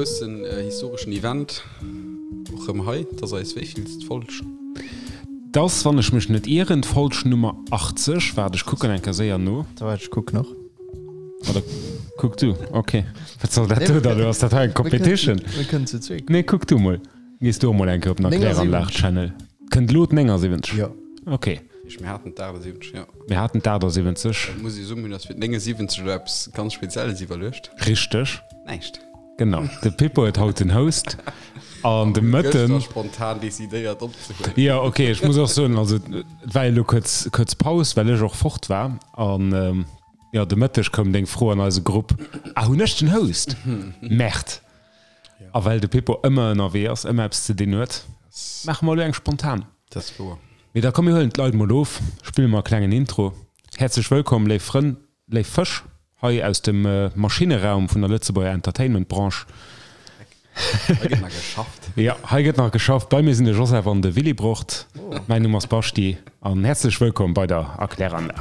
Groussen historeschen Event och rëm hei. Et ass eis wéivillst Folg? Et ass, wann ech mech net ieren, d'Folg Nummer 80. Waart, ech kucken eng Kéier séier no. Waart, ech kucken och. Oder kuck du. Ok. Wat soll dat do dann elo? Ass dat hei eng Competition? Mir kënnen zu zweek. Nee, kuck du mol. Gees du och mol eng Kéier op den Erkläranlag-Channel. Kënnt elo d'79? Jo. Ok. Mir haten d'78, jo. Mir haten d'78. Da muss ech soen, mir hunn eis fir d'79 elo eppes ganz Spezielles iwwerluecht. Richteg. Näischt. Genau, de Pippo huet haut den Host an de Mëtten. Gëschter spontan decidéiert opzehuelen. Jo, ok, ech muss och soen, also et war jo elo kuerz, kuerz Paus, well ech och fort war. An jo, de Mëtteg koum deng Fro an eise Grupp, Ah, hunn ech den Host? Merde! A well de Pippo ëmmer ënnerwee ass, ëmmer eppes ze dinn huet, maache mer elo eng spontan. Dat ass wouer. Mee da komm, mir huelen d'Leit mol of, spille mer e klengen Intro. Häerzlech wëllkomm, léif Frënn, Léif Fësch, hei aus dem Maschinneraum vun der Lëtzebuerger Entertainment-Branche. Hei gëtt nach geschafft. Jo, hei gëtt nach geschafft. Bei mir sinn de Joseph an de Willibrord. Mäin Numm ass Baschti an häerzlech wëllkomm bei der Erkläranlag.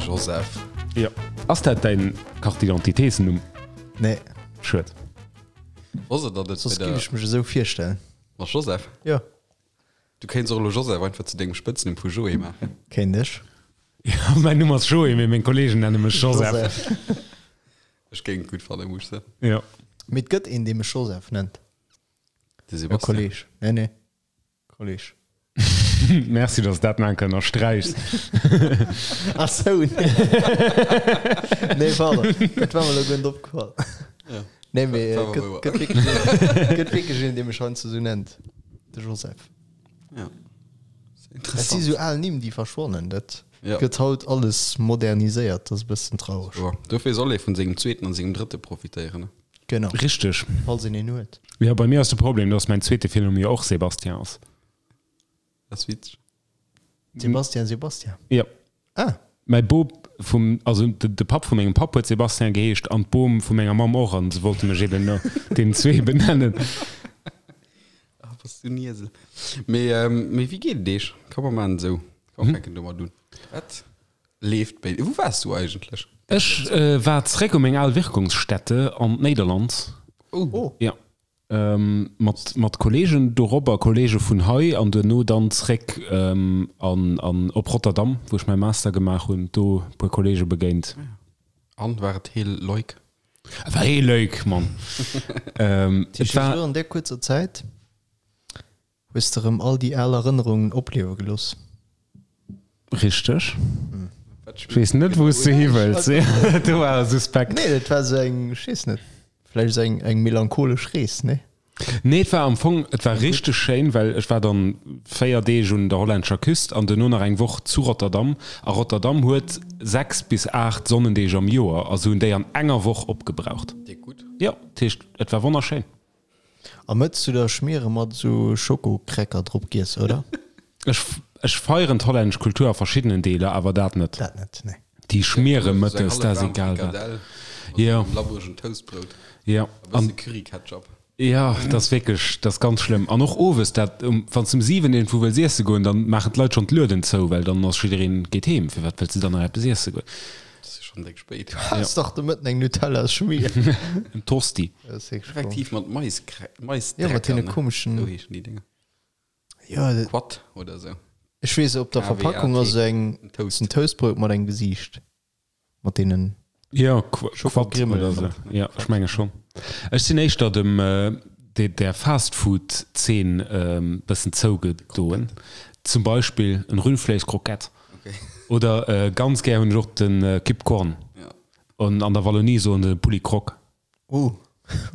Joseph. Jo. Ass dat däin Carte d'identité-s-Numm? Nee. Schued. Wosst der, datt et Soss bei giff der. ech mech esou virstellen. Mat Joseph? Jo. Du kéints och elo Joseph einfach zu dengem Spëtznumm vu Joé maachen. Kéint ech. Jo, mäin Numm ass Joé, mee meng Kolleegen nenne mech Joseph. Ech géing et gutt fannen, muss ech soen. Jo. Mee et gëtt een, dee mech Joseph nennt. De E Sebastian. Kolleeg. Nee, nee. Kolleg. Merci, dass dat nach eng Kéier ënnersträichs. Ach sou, nee. Nee, pardon. Dat war mer elo guer net opgefall. Ja. Nee, mee Dat war gëtt, wouer. gëtt wierklech een, gëtt wierklech een, dee mech heiansdo sou nennt. De Joseph. Ja. Et si Interessant. sou al Nimm, déi verschwannen. Dat Ja. gëtt haut alles moderniséiert. Dat ass e bëssen traureg. Wouer. Dofir soll ee vun sengem zweeten an sengem drëtte profitéieren, ne? Genau. Richteg. Falls een een huet. Jo, bei mir ass de Problem, dass mäin zweete Virnumm jo och Sébastien ass. Dat ass witzeg. Sebastian, Sebastian. Jo. Ah. Mäi Bop vum, also de Papp vu mengem Papp huet Sébastien geheescht an d'Bom vu menger Mamm och an se wollte mech eben no deenen zwee benennen. Ah, bass du en Iesel. Mee, mee wéi geet et Iech? Komm mer maachen et esou. Komm, fänken domat un. Wat Leeft béi. Wou waars du eigentlech? Ech war zeréck u meng al Wirkungsstätte an d'Néiderland. Oh. Jo. Mat mat Kollegen dorobber, Kollege vun hei an duerno dann zeréck an an op Rotterdam, wou ech mäi Master gemaach hunn, do e puer Kollege begéint. An, war et heel leuk? Et war heel leuk, Mann. Et war. An där kuerzer Zäit Hues de rëm all déi al Erënnerungen opliewe gelooss? Richteg. Ech weess net, wou s de hi wëlls. Do war e suspekt. Nee, dat war sou eng, ech weess net, vläicht sou eng, eng melancholesch Rees, nee? Nee, et war am Fong, et war richteg schéin, well ech war dann 4 Deeg un der hollännescher Küst an duerno nach eng Woch zu Rotterdam. A Rotterdam huet 6 bis 8 Sonnendeeg am Joer a se hunn déi an enger Woch opgebraucht. Déck gutt. Jo, dat heescht, et war wonnerschéin. A mëtts du der Schmiere mat esou Schokokräcker drop giess, oder? Ech, ech feieren d'hollännesch Kultur a verschiddenen Deeler, awer dat net. Dat net, nee. Déi Schmiere mëttes, dat ass egal wat. Jo. Labbregen Toastbrout. Jo. E bësse Curry-Ketchup. Jo, dat ass wierklech, dat ass ganz schlëmm. An och owes, dat, um, wann s de um 7 iergendwou wëlls iesse goen, dann maachen d'Leit schonn d'Lueden zou, well dann ass jiddereen geet heem. Firwat wëlls de dann nach eppes iesse goen? Dat ass jo schonn déck spéit. Du has dach de Mëtten eng Nutella-Schmier. En Tosti. Effektiv mat Maisdrecker. Jo, mat deene komeschen. Esou heeschen déi Dénger. Jo, dat. Quat oder esou. Ech weess, op der Verpackung ass esou eng. En Toast. En Toastbrout mat engem Gesiicht. Mat deenen. Jo, Quat oder esou. Jo, ech menge schonn. Ech sinn éischter dem, der Fastfood-Zeen bëssen zougedoen. Zum Beispill en Rüllfleeschkrockett. Okay. Oder ganz gär hunn ech och den Kip Korn. Ja. An an der Wallonie soen se Poulet Croque. Uh,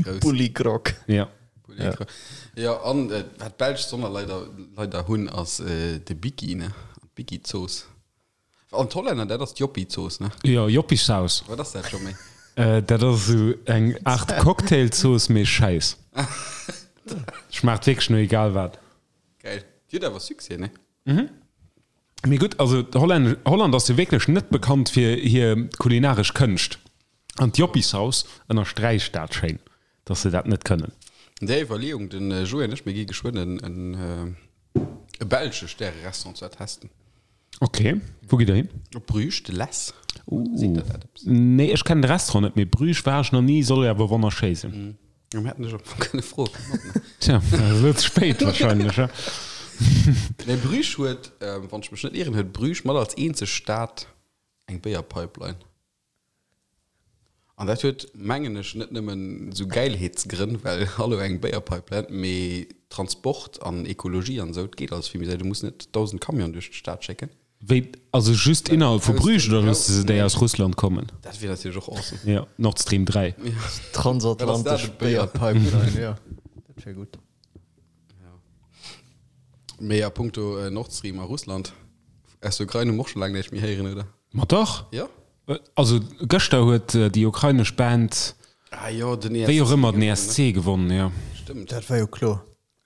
Grouss. Poulet Croque. Ja. Poulet Croque. Ja, an äh, wat d'Belsch Sonner leider, leider hunn, ass äh, de Biki, ne? D'Biki-Zooss. An d'Hollänner, dat ass d'Joppie-Zooss, ne? Jo, Joppiesaus. Wat ass dat scho méi? Äh, dat ass esou eng Aart Cocktailzooss, mee schäiss. Schmaacht wierklech no egal wat. Geil. Déi huet awer Succès, ne? Mee gutt, also d'Hollännesch, Holland ass jo wierklech net bekannt fir hir kulinaresch Kënscht. An d'Joppiesaus ënnersträicht dat schéin, dass se dat net kënnen. An där Iwwerleeung, de Joé an ech, mir gi geschwënn en, en. E belsche Stäre-Restaurant ze testen. Ok, wou gitt der hin? Op Bruges, de Les. Seet der dat eppes? Nee, ech kennen de Restaurant net, mee Bruges war ech nach ni, soll jo awer wonnerschéi sinn. Jo, mir hätten dech am Fong kënne froen. Tja, dat ass elo ze spéit wahrscheinlech, he? Nee, Bruges huet, wann ech mech net ieren, huet Bruges mat als eenzeg Stad eng Béierpipeline. An dat huet, mengen ech, net nëmmen esou Gäilheetsgrënn, well hallo, eng Béierpipeline, mee Transport an Ekologie an esou, et geet alles vill méi séier. Du muss net 1.000 Camionen duerch d'Stad schécken. Wéi, also just innerhalb vu Bruges oder loosse se déi aus Russland kommen? Dat wier natierlech och awesome. Jo, Nord Stream 3. Transatlantesch Béierpipeline, jo, dat wier gutt. Mee a punkto Nord Stream a Russland, aus der Ukrain hu mer och scho laang näischt méi héieren, oder? Ma dach! Jo? Also gëschter huet déi ukrainesch Band, Ah jo, den ESC wéi och ëmmer, den ESC gewonnen, jo. Stëmmt. Dat war jo kloer.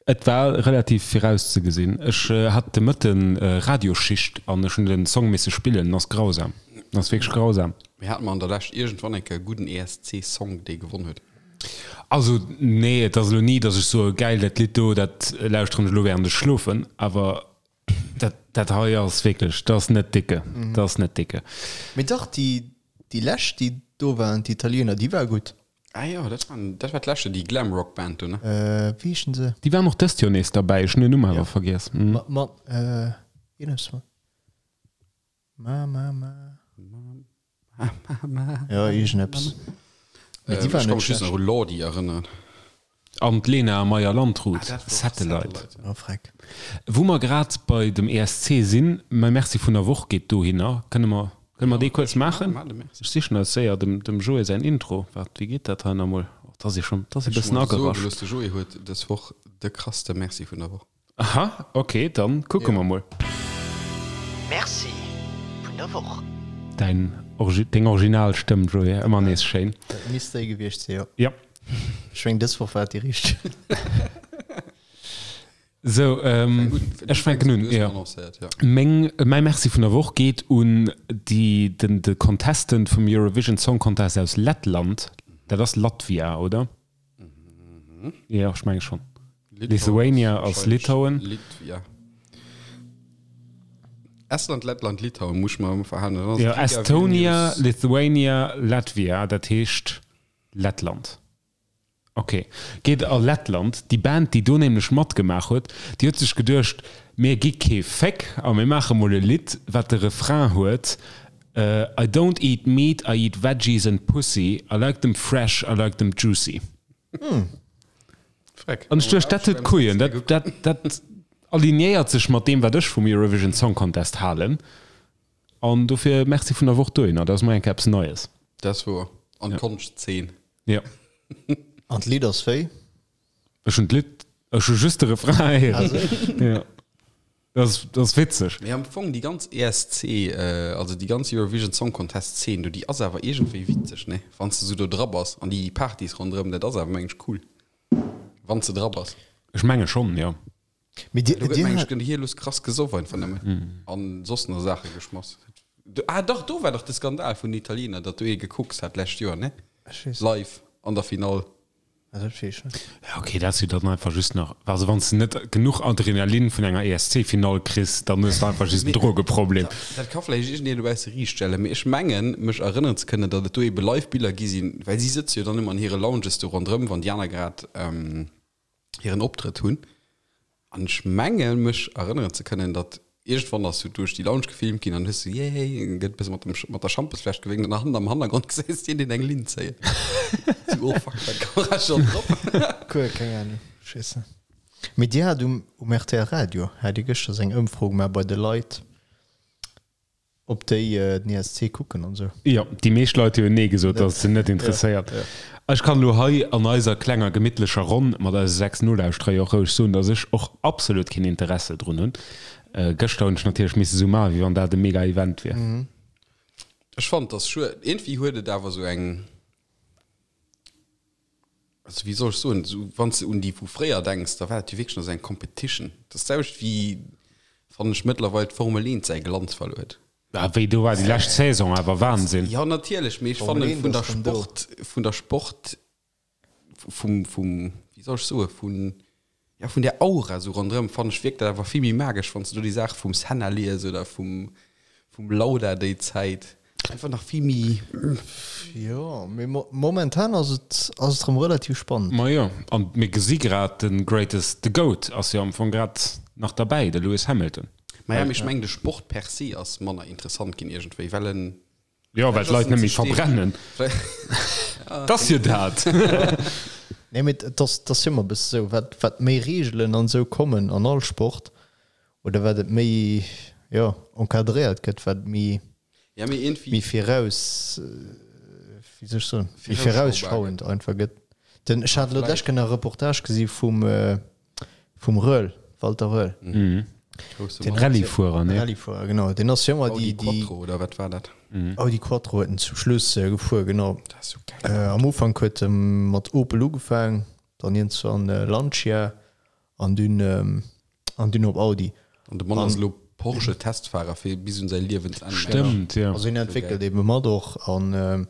Et war relativ virauszegesinn. Ech hat de Mëtten Radioschicht an ech hunn den Song misse spillen. En ass grausam. En ass wierklech grausam. Mee hate mer an der Lescht iergendwann eng Kéier e gudden ESC-Song, dee gewonnen huet? Also nee, et ass elo ni, datt ech soe gäil, dat Lidd do, dat lauschteren ech elo während ech schlofen. Awer dat, dat hei ass wierklech, dat ass net dicke. Dat ass net dicke. Mee dach, déi, déi lescht, déi do waren, d'Italiener, déi war gutt. Ah jo, dat waren, dat war d'leschte, déi Glamrock-Band do, ne? Wéi heeschen se? Déi waren och dëst Joer nees derbäi, ech hunn den Numm awer vergiess. Ma, ma, eeneps mat ma, ma, ma. Jo, iergendeppes. Mee déi war Ech ka net mech just schlecht. nach u Lordi erënneren. An d'Lena Meyer-Landrut, Ah, dat war och Satellite. Satellite, Oh, freck. Wou mer grad bei dem ESC sinn, mäi Merci vun der Woch geet dohinner. Kënne mer, kënne mer dee kuerz maachen? Maach de Merci. Ech sichen eis séier dem, dem Joé säin Intro. Waart, wéi geet dat hei nach emol? Oh, 't ass ee schonn, 't ass ee Ech bëssen muss soe agerascht. gelooss, de Joé huet dës Woch de krasste Merci vun der Woch. Aha, ok, dann kucke mer mol. Merci vun der Woch. Däin, deng original Stëmm, Joé, ëmmer nees schéin. Dat misst déi gewiescht sinn, jo. Jo. Ech meng, dës Woch war et déi richteg. Sou, ech fänken un, jo. Meng, mäi Merci vun der Woch geet un déi, den, de Contestant vum Eurovision Song Contest aus Lettland. Dat ass Latvia, oder? Jo, ech menge schonn. Lithuania ass Litauen. Litvia. Estland, Lettland, Litauen muss ech mer ëmmer verhalen. Dann ass Jo, et Riga, Estonia, Vilnius. Lithuania, Latvia, dat heescht Lettland. Ok, geet a Lettland. Déi Band, déi do nämlech matgemaach huet, déi huet sech geduecht, mir gi kee Féck a mir maache mol e Lidd, wat de Refrain huet, I don't eat meat, I eat veggies and pussy, I like them fresh, I like them juicy. Freck. An ech duecht, dat huet Couillen, dat, dat, dat alignéiert sech mat deem, wat ech vum Eurovision Song Contest halen. An dofir Merci vun der Woch dohinner, dat ass mol eng Kéier eppes Neies. Dat ass wouer. An d'Konschtzeen. Ja. An d'Lidd ass wéi? Ech hunn d'Lidd, ech hu just de Refrain héieren. Ja. Dat ass, dat ass witzeg. Mee am Fong déi ganz ESC, also déi ganz Eurovision Song Contest Zeen do, déi ass awer iergendwéi witzeg, ne? Wann s de sou do dra bass an déi Partys ronderëm, dat ass awer meng ech cool, wann s de dra bass. Ech menge schonn, jo. Mee dir, Do gëtt dir meng ech hat. gëtt hir lues krass gesoff einfach nëmmen an soss nach Saache geschmass. Ah dach, do war dach de Skandal vun den Italiener, datt do ee gekokst hat d'lescht Joer, ne? Ech weess. Live an der Finall. Ah, dat weess ech net. Ja ok, dat ass jo dann einfach just nach, also wann s de net genuch Adrenalin vun enger ESC-Finall kriss, dann hues de einfach just en Drogeproblem. Dat ka vläicht iergendeen dobausse riichtstellen, mee ech mengen mech erënneren ze kënnen, datt et do ebe live Biller gi sinn, well si sëtze jo dann ëmmer an hire Lounges do ronderëm, wann déi aner grad hiren Optrëtt hunn. An ech menge mech erënneren ze kënnen, datt iergendwann ass du duerch déi Lounge gefilmt ginn an hues du yay, gëtt e bësse mat dem mat der Schampesfläsch gewénkt an hannen am Hannergrond gesäis de deen eng Linn zéien. Sou, oh fuck, war d'Kamera schonn drop? Cool, keng Ahnung, ech weess net. Mee dir hat um um rtl Radio hat dir gëschter sou eng Ëmfro gemaach bei de Leit. Ob déi den ESC kucken an esou. Jo, déi meescht Leit hu jo Nee gesot, dass et se net interesséiert. Ech kann elo hei an eiser klenger gemittlecher Ronn mat eise 6 Nolauschterer jo och roueg soen, dass ech och absolut keen Interesse drun hunn. Gëschter hunn ech natierlech misse sou maachen, wéi wann dat e mega Event wier. Ech fannen, dass schued. Iergendwéi huet et awer sou eng. Also wéi soll ech soen, esou wann s de un déi vu fréier denks, da war dat jo wierklech nach esou eng Competition. Dat ass d'selwecht wéi, fannen ech, mëttlerweil d'Formel 1 säi Glanz verluer huet. Ah wéi, do war déi lescht Saison awer Wahnsinn. Jo natierlech, mee ech Formel fannen 1 vun der ass rëm do. Sport, vun der Sport, vum, vum, wéi soll ech soen, vun. Ja, vun där Aura esou ronderëm fannen ech wierkt dat awer vill méi magesch, wann s de do déi Saache vum Senna lies oder vum, vum Lauda déi Zäit. Einfach nach vill méi. Jo, mee momentan ass et, ass et rëm relativ spannend. Ma jo, an mir gesi grad de Greatest, de Goat ass jo am Fong grad nach derbäi, de Lewis Hamilton. Ma ja, mee ech mengen de Sport per se ass manner interessant ginn iergendwéi, well en. Jo, well d'Leit net méi verbrennen. Et ass jo dat. Nee, mee et ass, et ass jo ëmmer e bësse sou, wat, wat méi Reegelen an esou kommen an all Sport, oder wat et méi, jo, encadréiert gëtt, wat méi, Ja, mee iergendwéi. méi viraus, wéi soll ech soen, méi virausschauend einfach gëtt. Den, ech hat elo d'lescht Kéier nach e Reportage gesi vum, vum Röhrl, Walter Röhrl. Mhm. Den Rallyefuerer, ne? Rallyefuerer, genau. Den ass jo ëmmer déi, déi. Audi Quattro, oder wat war dat? Audi Quattro huet en zum Schluss gefuer, genau. Dat ass sou geil. Am Ufank huet e mat Opel ugefaang, dann iergendwann Lancia an dunn, an dunn op Audi. An de Mann ass elo Porsche-Testfahrer fir bis un säi Liewensenn. Stëmmt, jo. Also hien entwéckelt ebe mat och an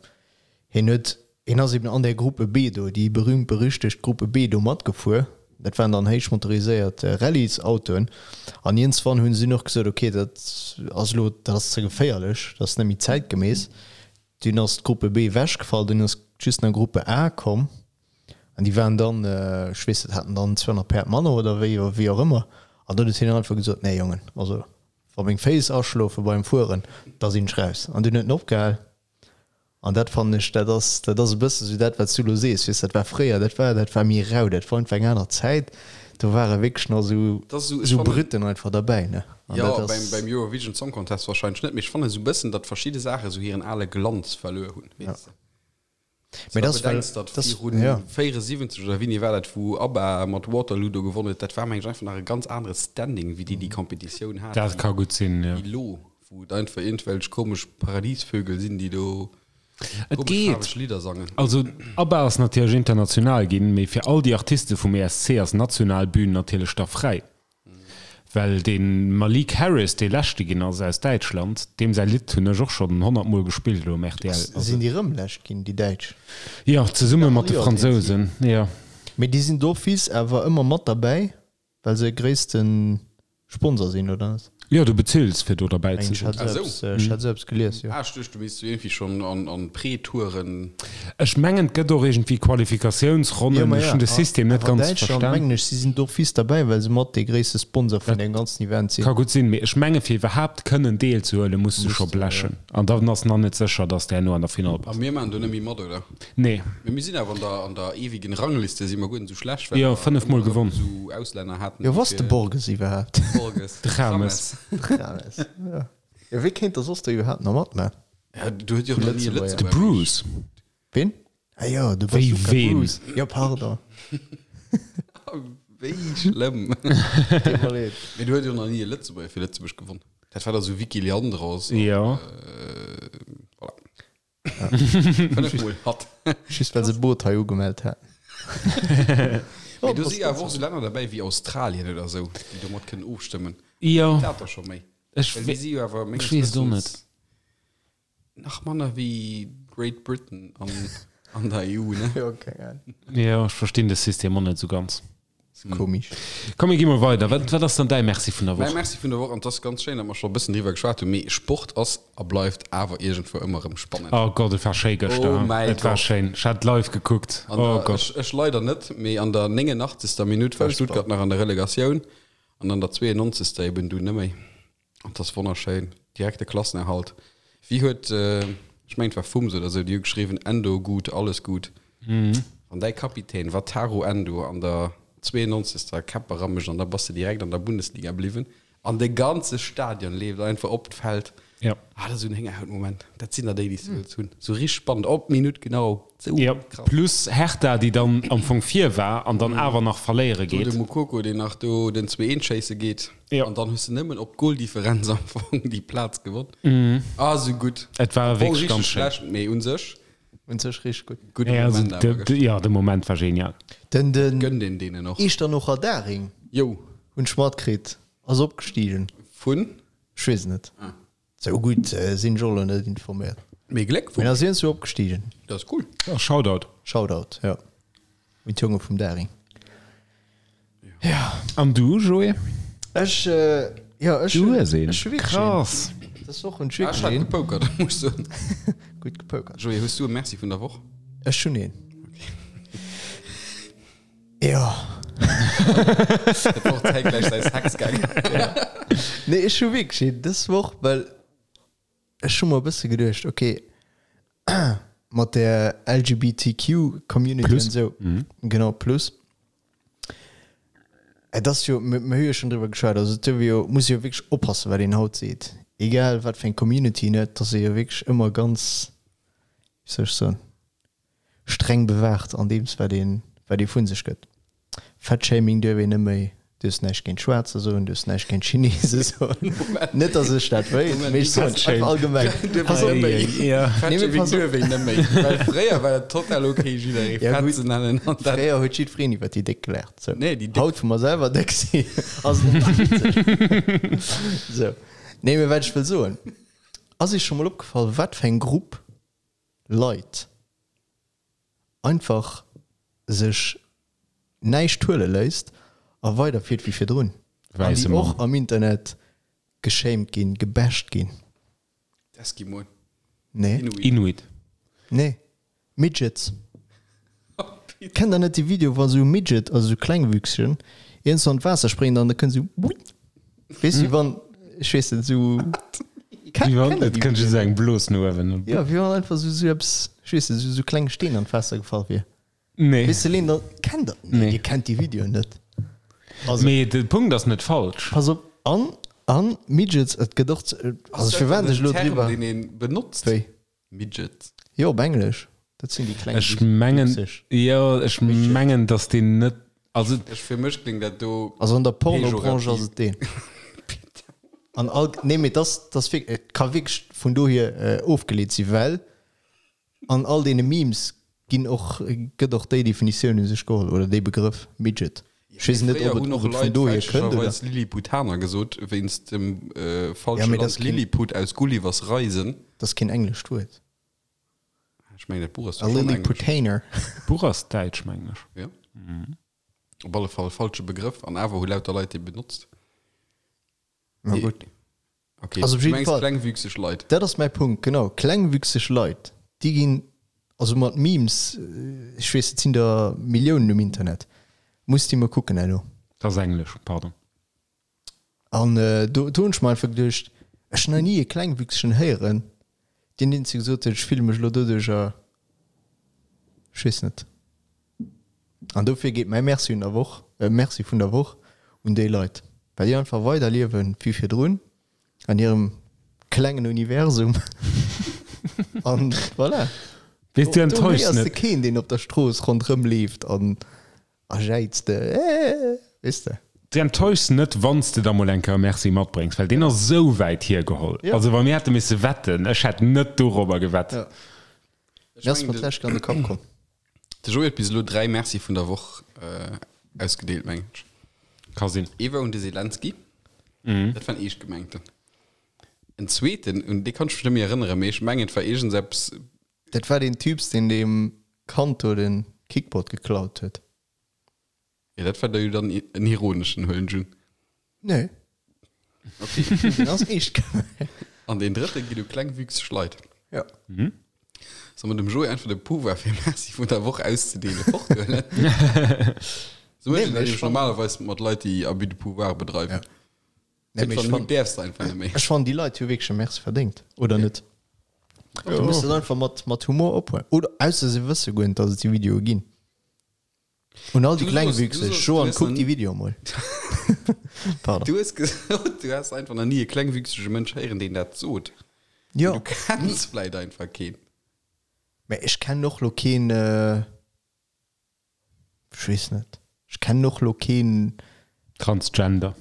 hien huet Hien ass eben an där Gruppe B do, déi berühmt berüchtegt Gruppe B do matgefuer. Dat waren dann héich motoriséiert Rallyesautoen. An iergendswann hunn se dunn och gesot, ok, dat ass elo, dat ass ze geféierlech, dat ass net méi zäitgemäss. Dunn ass d'Gruppe B ewechgefall, dunn ass just nach Gruppe A komm. An déi waren dann, ech weess net, haten dann 200 Päerd manner oder wéi, wéi och ëmmer. An dunn huet hien einfach gesot, nee Jongen, also wa meng Féiss aschlofe beim Fueren, da sinn ech raus. An dunn huet en opgehal. An dat fannen ech, dat ass, dat ass e bësse sou dat, wat s du elo sees, weess, dat war fréier, dat war, dat war méi rau, dat war einfach eng aner Zäit, do ware wierklech nach sou, Dat ass esou, ech sou fannen, Brütten einfach derbäi, ne? An jo, dat beim, ass, beim Eurovision Song Contest wahrscheinlech net, mee ech fannen esou e bëssen, datt verschidde Saache sou hiren ale Glanz verluer hunn, ja. weess de. Mee Wann dat du ass, well, bedenks, datt dat ass, virun ja. 74 oder wéini war dat, wou ABBA mat Waterloo do gewonnen huet, dat war meng ech einfach nach e ganz anere Standing, wéi déi déi Competitioun haten, Dat ka gutt sinn, jo. wéi elo. Wou et einfach iergendwelch komesch Paradiesvögel sinn, déi do Et komesch geet. faarweg Lidder sangen. Also ABBA ass natierlech international ginn, mee fir all déi Artiste vum ESC ass d'national Bühn natierlech da fräi. Well dee Malik Harris, dee Leschte ginn ass aus Däitschland, deem säi Lidd hunn ech och schonn 100 Mol gespillt elo um rtl. Also. Sinn déi rëm Lescht ginn, déi Däitsch? Jo, zesumme mat de Fransousen, jo. Mee déi sinn d'office awer ëmmer mat derbäi. Well se gréissten Sponsor sinn, oder net? Jo, du bezills fir do derbäi ze Ech sinn. hat esou eppes gelies, jo. Ah, ech duecht du misst iergendwéi schonn an Pre-Touren. Ech mengen et gëtt och iergendwéi Qualifikatiounsronnen, ech hunn de System net ganz Däitschland verstan. mengen ech, si sinn d'office derbäi, well se mat dee gréisste Sponsor vun deem ganzen Event sinn. Ka gutt sinn, mee ech menge fir iwwerhaapt kënnen deelzehuelen, muss du scho blechen an dann ass nach net sécher, dass de herno an der Finall A bass. mir maachen do net méi mat, oder? Nee. Mee mir sinn awer an der, an der ewigen Rangliste si mer guer net esou schlecht, well Jo, mer 5 mol ëmmer erëm gewonn. esou Auslänner haten, Jo, déi wou ass de fir Borges iwwerhaapt? Borges, De James. James. James, jo. Jo, wee kéint da soss do iwwerhaapt nach matman? Ja, do huet jo och nach ni e Lëtzebuerger. De Lëtzebuerger. Bruce. Ween? Ah jo, de Wéi Bazooka ween? Bruce. Jo, pardon. Wéi schlëmm. Deet mer leed. Mee do huet jo nach ni e Lëtzebuerger fir Lëtzebuerg gewonn. Dat war da sou Vicky Leandros. Jo. Voilà. 5 mol hatt. Just well se Boot hei ugemellt haten. Mee do si awer och sou Länner derbäi wéi Australien oder sou, déi do mat kënnen ofstëmmen. Jo. Dat da scho méi. Ech Well déi si jo awer menges ech weess et och Wëssens net. nach manner wéi Great Britain an, an der EU, ne? Jo, keng Ahnung. Jo, ech verstinn de System och net sou ganz. Komisch. Komm mir gi mol weider. Wat, wat ass dann däi Merci vun der Mäi Woch? Merci vun der Woch, an et ass ganz schéin, datt mer scho e bëssen driwwer geschwat hunn, mee Sport ass a bleift awer iergendwou ëmmer erëm spannend. Oh Gott, et war schéi gëschter. Oh mäi Et war Gott. schéin. Ech hat live gekuckt. An Oh der, Gott. ech, ech leider net, mee an der 89. Minutt war Stuttgart nach an der Relegatioun an an der 92. eben dunn net méi. An 't ass wonnerschéin. Direkt de Klassenerhalt. Wéi huet, ech mengen et war Fums oder sou, déi hu geschriwwen, Endo gut, alles gut. Wann däi Kapitän Wataru Endo an der 92. Käpp eramécht an da bass de direkt an der Bundesliga bliwwen an de ganze Stadion leeft einfach op d'Feld. Ja. Ah, dat ass esou en Héngerhautmoment. Dat sinn der déi, déi s de wëlls hunn. Sou richteg spannend, op d'Minutt genau. Sou Ja, krass. plus Hertha, déi dann am Fong vir war an dann awer nach verléiere Do de geet. Moukoko, deen nach do den 2-1 schéisse geet. Ja. An dann hues de nëmmen op d'Goldifferenz am Fong déi Plaz gewonn. Ah, sou gutt. Et war Am Fong wierklech richteg ganz schéin. schlecht, mee un sech Un sech richteg gutt. gudde Ja, also Moment awer de, de, gëschter. ja, de Moment war genial. Den, den Gönnt een deenen och. Echternocher Daring Jo. hunn ech matkritt, ass opgestigen. Vun? Ech weess et net. Sou gutt sinn ech och elo net informéiert. Mee Mee Gléckwonsch. ass iergendwou opgestigen. Dat ass cool. Ja, Shoutout. Shoutout, jo. Un d'Jonge vum Daring. Jo. Ja. An du, Joé? Ech, jo, ech Du hues een. Ech hu wierklech een. Krass. Dës Woch hunn ech Ah, ech wierklech hat een. gepokert, muss ech soen. Gutt gepokert. Joé, hues du e Merci vun der Woch? Ech hunn een. Jo. Et wor zäitgläich säi Sex gaangen. Nee, ech hu wierklech een dës Woch, well ech hu mer e bësse geduecht, okay, mat der LGBTQ Community Plus. an esou, genau, plus, et ass jo, mir mir hu jo schonn driwwer geschwat, also et duerf ee jo, muss ee jo wierklech oppassen, wat een haut seet, egal wat fir eng Community een huet, dass ee jo wierklech ëmmer ganz, wéi soll ech soen, streng bewaacht an deems wat een wat ee vun sech gëtt. Fatshaming duerf een net méi, duerfs näischt géint Schwaarzer soen, duerfs näischt géint Chinese soen. Net datt ech dat wéilt, mee ech soen et einfach allgemeng. Pass op, Nee, mee Fatshaming pass op. duerf een net méi, well fréier war dat total ok jidderee Ja, fett gutt. ze nennen an dat. Fréier huet jiddwereen iwwer déi Déck gelaacht. Sou. Nee, déi Déck. Haut wou mer selwer déck sinn, ass et net méi witzeg. Sou. Nee, mee wat ech wëll soen, ass iech scho mol opgefall wat fir eng Grupp Leit einfach sech näischt huele léisst a weiderfiert wéi virdrun an Wäisse déi och Mann. am Internet geschämt ginn, gebasht ginn. D'Eskimoen. Nee. Inuit. Inuit. Nee. Midgets. Kennt der net déi Video wa sou Midget, also sou Klengwüchsegen, iergendwou an d'Waasser spréngen an da kënnt sou wuit, weess wéi wann, ech weess net, sou. Wéi wann, et kënnt just eng Blos no uewen. Jo, wéi wann einfach sou sou eppes, ech weess net, sou sou kleng Steen an d'Waasser gefall wier. Nee. Weess de Leen, da kennt der, nee, Nee. dir kennt déi Videoen net. Also. Mee de Punkt ass net falsch. Pass op, an, an Midgets, et gëtt och, also firwat ech elo Term, driwwer. deen een benotzt? Wéi? Midget. Jo, op Englesch. Dat sinn déi kleng Ech mengen, Wüchseg. jo, ech mengen, dass deen net, also. Ech, fir mech kléngt dat do. Also an der Pornobranche ass Pejorativ. et deen. An all, nee, mee dass, dass wirk, et ka wierklech vun dohier ofgeleet sinn, well an all deene Memes ginn och, gëtt och déi Definitioun u sech geholl, oder dee Begrëff Midget. Ech weess net, Fréier ob et, hunn ob och et vun Leit dohier kënnt, oder? fälschlecherweis Lilliputaner gesot, wéinst dem Ja, falsche mee dat Land ass keen. Lilliput aus Gullivers Reisen. Dat ass keen englescht Wuert. Ech mengen, dat Buch ass A doch schonn englesch. Lilliputaner. D'Buch ass däitsch, mengen ech. Jo. Op alle Fall falsche Begrëff, an awer hu lauter Leit dee benotzt. Na gutt. Okay, Also op du jidde mengs Fall. klengwüchseg Leit. Dat ass mäi Punkt, genau. Klengwüchseg Leit, déi ginn, also mat Memes, ech weess, et sinn der Milliounen um Internet, muss déi mol kucken herno. Dat ass englesch, pardon. An do do hunn ech mer einfach geduecht, ech hunn nach ni e Klengwüchsegen héieren, deen deen zu gesot huet, ech fille mech elo doduercher, ech weess net. An dofir geet mäi Merci un der Woch, Merci vun der Woch un déi Leit, well déi einfach weiderliewen wéi virdrun an hirem klengen Universum. An voilà. Weess du Do enttäuschs héiers de net. keen, deen op der Strooss ronderëm leeft an a jäizt, Äh, weess de. Du enttäuschs net, wann s de da mol eng Kéier e Merci matbréngs, well deen ass esou wäit hiergeholl. Ja. Also wa mir hätte misse wetten, ech hätt net dorobber gewett. Ja. Ech Mir ass mengen, mat de- lech an de Kapp komm. De Joé huet bis elo 3 Merci vun der Woch ausgedeelt, mengen ech. Ka sinn. Ee war un de Zelensky, dat war en eescht gemengten. En zweeten, un dee kann ech mech net méi erënneren, mee ech mengen et war iergendseppes, Dat war deen Typs, deen deem Kand do den Kickboard geklaut huet. jo dat war da jo dann en ironeschen, huelen ech un. Nee. Okay. Deen ass eescht gemengt. An deen drëtte geet u klengwüchseg Leit. Ja. Soll mer dem Joé einfach de Pouvoir fir Merci vun der Woch auszedeelen forthuelen? Sou mécht Nee, een mee dat ech nämlech fannen- normalerweis mat Leit, déi Abus de pouvoir bedreiwen. Ja. Nee, mee ech Irgendwann fannen- däerfs de einfach net méi. Ech fannen, déi Leit hu wierklech e Merci verdéngt, oder net? Du muss dat einfach mat, mat Humor ophuelen. Oder ausser se wësse guer net, datt et déi Videoe ginn. Un all déi Du Klengwüchseg, soss- du soss- Joan, du hues kuck nach déi Videoe mol. Pardon. Du hues gesot, du häss einfach nach ni e klengwüchsege Mënsch héieren, deen dat sot. Jo. Du kenns vläit einfach keen. Mä ech kennen och lo keen, ech weess net, ech kennen och lo keen. Transgender.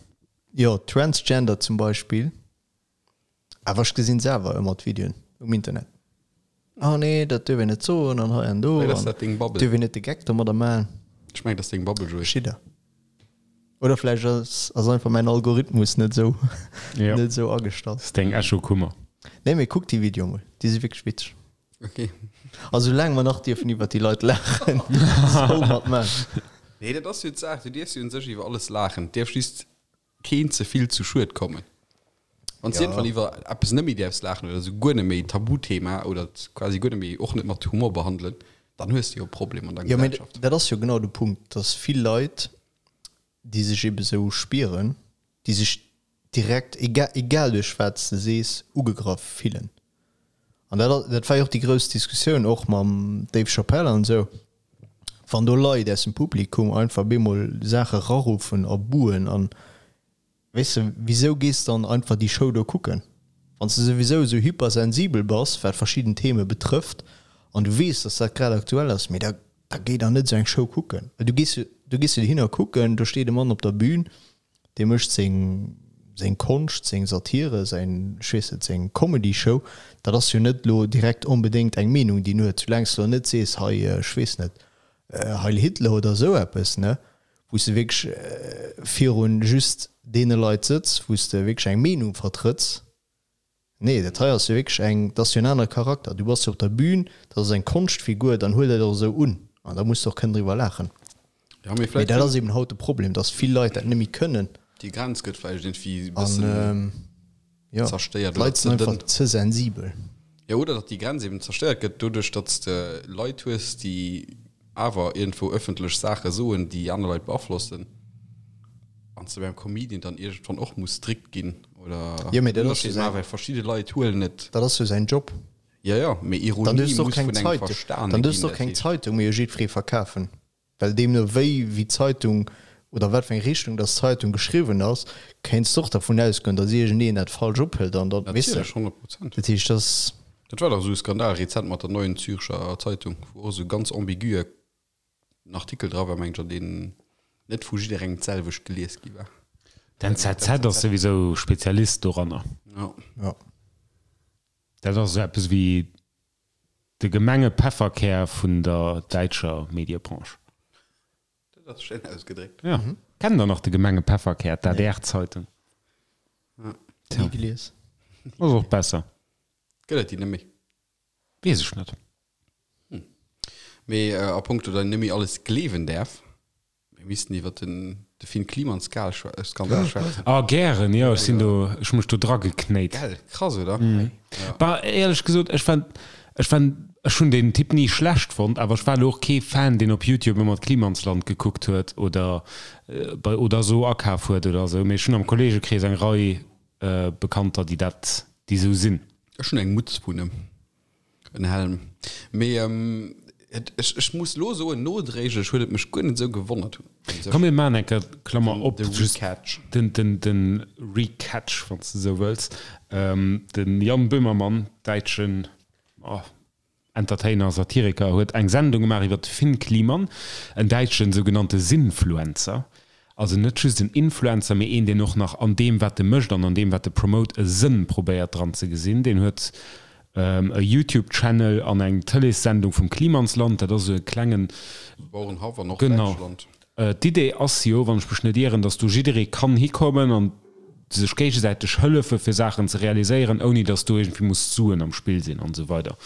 Jo, Transgender zum Beispill. Awer ech gesinn selwer ëmmer d'Videoen um Internet. Ah nee, dat duerf een net soen an hei an do. Vläit ass an dat deng Bubble. Duerf een net de Geck domadder maachen. Ech mengen, dat ass deng Bubble, Joé. Schidder. Oder vläicht ass, ass einfach mäin Algorithmus net esou, Ja. net esou agestallt. Dat ass deng Echokummer. Nee, mee kuck déi Videoe mol, déi si wierklech witzeg. Okay. A soulaang mer nach dierfen iwwer déi Leit laachen, soll mer et maachen. Nee, dat ass jo d'Saach, du dierfs jo un sech iwwer alles laachen, et dierf just keen ze vill zu Schued kommen. Wann s du iergendwann iwwer eppes net méi däerfs laachen oder esou guer net méi Tabuthema oder et quasi guer net méi, och net mat Humor behandelen, dann hues de jo e Problem an der Jo, mee Gesellschaft. dat ass jo genau de Punkt, dass vill Leit, déi sech ebe sou spieren, déi sech direkt, egal, egal duerch wat s de sees, ugegraff fillen. An dat, dat war jo och déi grouss Diskussioun och mam Dave Chappelle an esou, wann do Leit aus dem Publikum einfach bemol Saache raruffen a buhen an, weess de, wisou gees dann einfach déi Show do kucken, wann s de souwisou esou hypersensibel bass, wat verschidden Theme betrëfft an du weess, dass dat grad aktuell ass, mee da, da géi dann net esou eng Show kucken, well du gees jo, du gees jo dohinner kucken, do steet e Mann op der Bühn, Dee mécht seng, seng Konscht, seng Satire, säin, ech weess net, seng Comedy-Show. Dat ass jo net elo direkt onbedéngt eng Meenung, déi en huet. Soulaang s de elo net sees, hei, ech weess net, Heil Hitler oder esou eppes, ne, wou s de wierklech virun just deene Leit sëtz, wou s de wierklech eng Meenung vertrëtts. Nee, dat hei ass jo wierklech eng, dat ass jo en anere Charakter. Du bass jo op der Bühn, dat ass eng Konschtfigur, dann huel dat och esou un an da muss de och kënnen driwwer laachen. Ja, mee Mee vläicht dat ass eben haut de Problem, dass vill Leit dat net méi kënnen. Déi Grenz gëtt vläicht iergendwéi e An bëssen jo, zerstéiert oder d'Leit ze sinn dënn. einfach ze sensibel. Jo, oder datt déi Grenz eben zerstéiert gëtt doduerch, datt s de Leit hues, déi awer iergendwou ëffentlech Saache soen, déi aner Leit beaflossen, an s de beim Comedian dann iergendwann och muss strikt ginn oder Jo, mee dat ass jo Ënnerscheed säin, maachen, well verschidde Leit huelen et. dat ass jo säin Job. Jo, jo, mee Dann Ironie duerfs de och muss keng vun engem Zeitung, verstane dann duerfs ginn, de och dat keng heescht. Zeitung méi u jiddweree verkafen. Well deemno wéi, wéi d'Zeitung oder wat fir eng Richtung dass d'Zeitung geschriwwen ass, kéints de och dervun ausgoen, dass iergendeen dat falsch ophëlt an dann, weess de. Natierlech, 100 Prozent. Dat heescht, dass. Dat war dach esou e Skandal rezent mat der Neuen Zürcher Zeitung, wou och esou ganz ambigue en Artikel dra war, mengen ech, an deen net vu jidderengem d'selwecht gelies gi war. D'NZZ ass souwisou Spezialist doranner. Jo. Jo. Dat ass esou eppes wéi de gemenge Pefferkär vun der däitscher Mediebranche. Dat ass schéin ausgedréckt. Jo. Kennt der nach de gemenge Pefferkär, d'ADR-Zeitung? Ni gelies. Ass och besser. Gëtt et déi net méi? Weess ech net. Mee a punkto datt een net méi alles gleewen däerf, mir missten iwwer den de Finn Kliman Skandal schwätzen. Ah gären, jo, ech sinn do, ech hu mech do drageknéit. Gell, krass oder? Bah, éierlech gesot, ech war, ech war, ech hunn deen Typ ni schlecht fonnt, awer ech war elo och kee Fan, deen op Youtube ëmmer d'Klimansland gekuckt huet oder bei oder esou akaf huet oder esou, mee ech hunn am Kolleegekrees eng Rei Bekannter, déi dat, déi esou sinn. Ech hunn eng Mutz vun em. En Helm. Mee et, ech, ech muss lo soen, nodréiglech huet et mech guer net esou gewonnert. Komm mir maachen eng Kéier Klammer op, De just Recatch. den, den, den Recatch, wann s de esou wëlls. Den Jan Böhmermann, däitschen Entertainer, Satiriker, huet eng Sendung gemaach iwwer de Finn Kliman, en däitschen sougenannte Sinnfluencer. Also net just en Influencer, mee een, deen och nach an deem, wat e mécht an an deem, wat e promote, e Sënn probéiert dran ze gesinn. Deen huet e YouTube-Channel an eng Tëleessendung vum Klimansland, dat ass esou e klengen. Bauerenhaff an Norddeitschland. Genau. D'Idee ass jo, wann ech mech net ieren, datt do jidderee kann hikommen an sech géigesäiteg hëllefe fir Saachen ze realiséieren, ouni datt do iergendwéi muss Suen am Spill sinn an esou weider.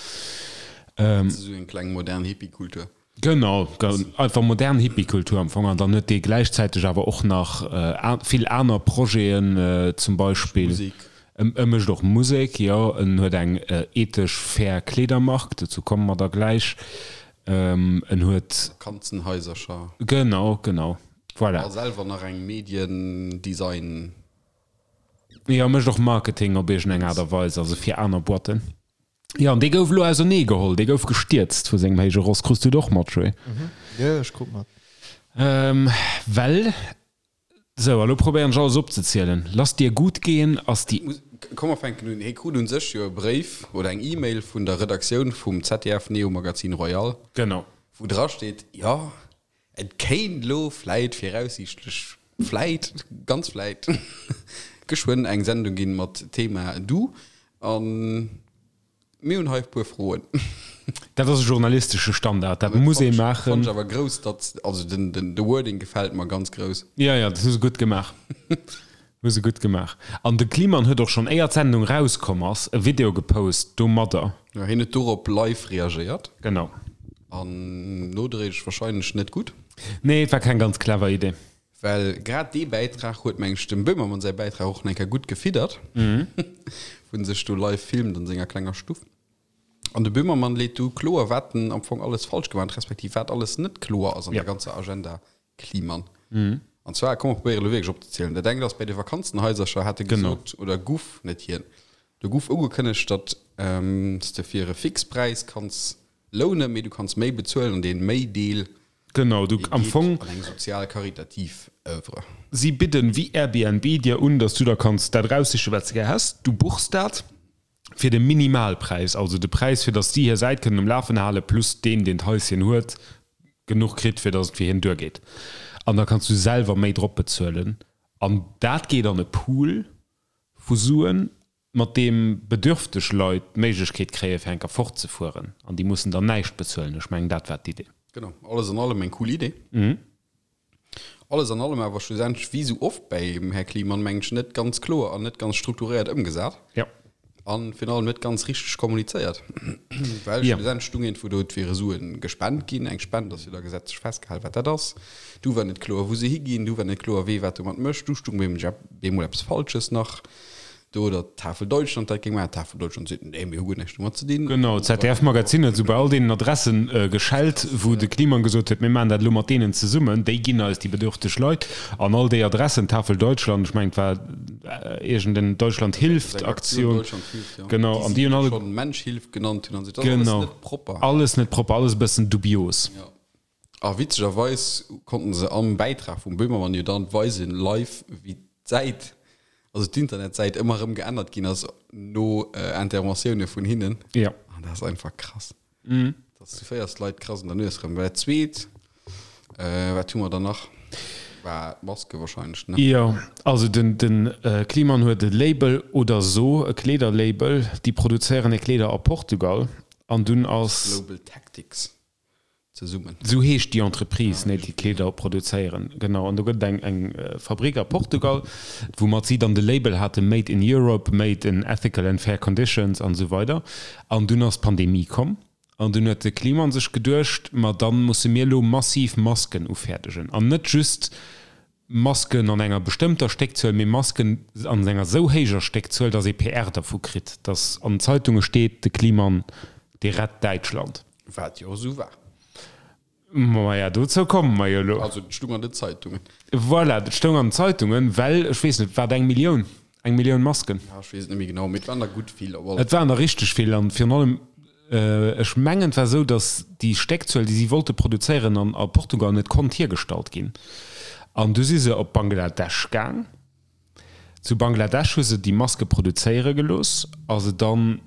Dat ass esou eng kleng modern Hippie-Kultur. Genau, einfach modern Hippie-Kultur am Fong. An dann huet dee gläichzäiteg awer och nach vill aner Projeten, zum Beispill. Musek. E mécht och Musek, jo. En huet eng ethesch fair Kleedermark, dozou komme mer da gläich. En huet. Vakanzenhaisercher. Genau, genau. Voilà. A selwer nach eng Medien-Design. Jo, mécht och Marketing op iergendeng Aart a Weis, also fir aner Boîten. Jo, an dee gouf elo ausernee geholl, dee gouf gestierzt vu sengem héije Ross. Krus du et och mat, Joé? Jo, ech krut mat. Well, sou, a lo probéieren ech alles opzezielen. Lass dir gut gehen ass déi. Komm mer fänken un. Hie krut un sech jo e Bréif oder eng E-Mail vun der Redaktioun vum ZDF Neo Magazin Royal. Genau. Wou dra steet, jo, et kéint elo vläit viraussiichtlech, vläit, ganz vläit, geschwënn eng Sendung ginn mat Thema Du. A mir hunn hei e puer Froen. Dat ass e journalistesche Standard, dat muss ee maachen. Fannt ech awer grouss, datt, also den, den, de Wording gefält mer ganz grouss. Jo, jo, dat hu se gutt gemaach. Hu se gutt gemaach. An de Kliman huet och schonn, éier d'Sendung rauskomm ass, e Video gepost domadder. Jo, hien huet dorop live reagéiert. Genau. An nodréiglech wahrscheinlech net gutt. Nee, et war keng ganz clever Idee. Well grad dee Bäitrag huet, meng ech, dem Böhmermann säi Bäitrag och nach eng Kéier gutt gefiddert, wou en sech do live filmt an senger klenger Stuff. An de Böhmermann leet du kloer, wat en am Fong alles falsch gemaach huet, respektiv wat alles net kloer ass an der ganzer Agenda Kliman. An zwar, komm mer probéiere elo wierklech opzezielen, Dat engt ass, bei de Vakanzenhaisercher hat e gesot, oder guff, net hien, do guff ugekënnegt, datt s de fir e Fixpräis kanns lounen, mee du kanns méi bezuelen an dee Méi-Deel, Genau, du am Fong. An eng sozial karitativ Oeuvre. Si bidden wéi Airbnb dir un, datt du der kanns dat eraussichen, wat s de gär häss. Du buchs dat fir de Minimalpräis, also de Präis, fir datt si hir Säit kënnen um Lafen halen, plus deen, deen d'Haischen huet, genuch kritt, fir datt et fir hien duergeet. An da kanns du selwer méi drop bezuelen. An dat geet an e Pool vu Suen, mat deem bedürfteg Leit d'Méiglechkeet kréien, fir eng Kéier fortzefueren. An déi mussen dann näischt bezuelen. Ech mengen, dat war d'Idee. Genau. Alles an allem eng cool Idee. Alles an allem awer schlussendlech, wéi esou oft beim Här Kliman, mengen ech, net ganz kloer an net ganz strukturéiert ëmgesat. Jo. A virun allem net ganz richteg kommunizéiert. Well Jo. schlussendlech stung iergendwou do, et wiere Sue gespent ginn. Eng Spend ass jo da gesetzlech festgehalen, wat dat ass. Du war net kloer, wou se higinn. Du war net kloer, wee wat domat mécht. Du stung bemol eppes Falsches nach Do oder d'Tafel Deutschland dat géing maachen. D'Tafel Deutschland seet, nee, mir hu guer näischt domat ze dinn. Genau, d'ZDF-Magazin huet esou bei all deenen Adressen geschellt, wou de Kliman gesot huet, mir maachen dat elo mat deenen zesummen, déi ginn eis déi bedürfteg Leit. An all déi Adressen, Tafel Deutschland, ech mengen et war iergend en Deutschland hilft Aktioun, genau, an déi hunn alle. Schonn Mensch hilft genannt hunn an esou. Dat ass alles net propper. Alles net propper, alles e bëssen dubios. Jo. A witzegerweis konnten se am Bäitrag vum Böhmermann jo dann weisen, live, wéi d'Säit, also d'Internetsäit ëmmer erëm geännert ginn ass no Interventioune vun hinnen. Jo. An dat ass einfach krass. Dass du féiers d'Leit krass un der Nues erëm. Well dat Zweet, wat hu mer dann nach, war d'Maske wahrscheinlech, ne? Jo, also den, den Kliman huet e Label oder so, e Kleederlabel, déi produzéieren hir Kleeder a Portugal an dunn ass. Global Tactics. Zesummen. Esou heescht déi Entreprise, nee, déi d'Kleeder produzéieren. Genau. An do gëtt et eng, eng Fabrik a Portugal, woumat si dann de Label hate Made in Europe, Made in ethical and fair conditions an esou weider. An dunn ass d'Pandemie komm an dunn huet de Kliman sech geduecht, ma da musse mir elo massiv Masken ufäerdegen. An net just Masken an enger bestëmmter Stéckzuel, mee Masken an enger esou héijer Stéckzuel, datt ee PR dervu kritt, datt an den Zeitunge steet, de Kliman, dee rett Däitschland. Wat jo esou war. Maja, dozou komme mer jo elo. Also et stung an den Zeitungen. Voilà, et stoung an den Zeitungen, well, ech weess net, war et eng Millioun? Eng Millioun Masken? Ja, ech weess et net méi genau, mee et waren der gutt vill op alle Fall. Et waren der richteg vill an virun allem, Ech mengen et war esou, datt déi Stéckzuel, déi si wollte produzéieren an a Portugal net konnt hiergestallt ginn. An du si se op Bangladesch gaang. Zu Bangladesch hu se déi Maske produzéiere gelooss a se dann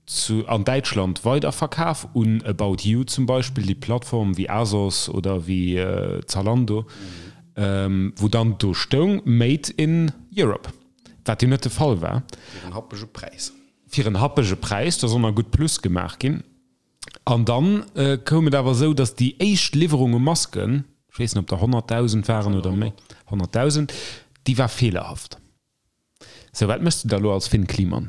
zu an Däitschland weiderverkaf un About You zum Beispill, déi Plattform wéi Asos oder wéi Zalando, wou dann do stoung Made in Europe, wat jo net de Fall war. Fir en happege Präis. Fir en happege Präis, do soll nach gutt Plus gemaach ginn. An dann koum et awer esou, datt déi éischt Liwwerung u Masken, ech weess net, ob der 100.000 waren oder méi, 100.000, déi war feelerhaft. Sou, wat méchs de da elo als Fynn Kliemann?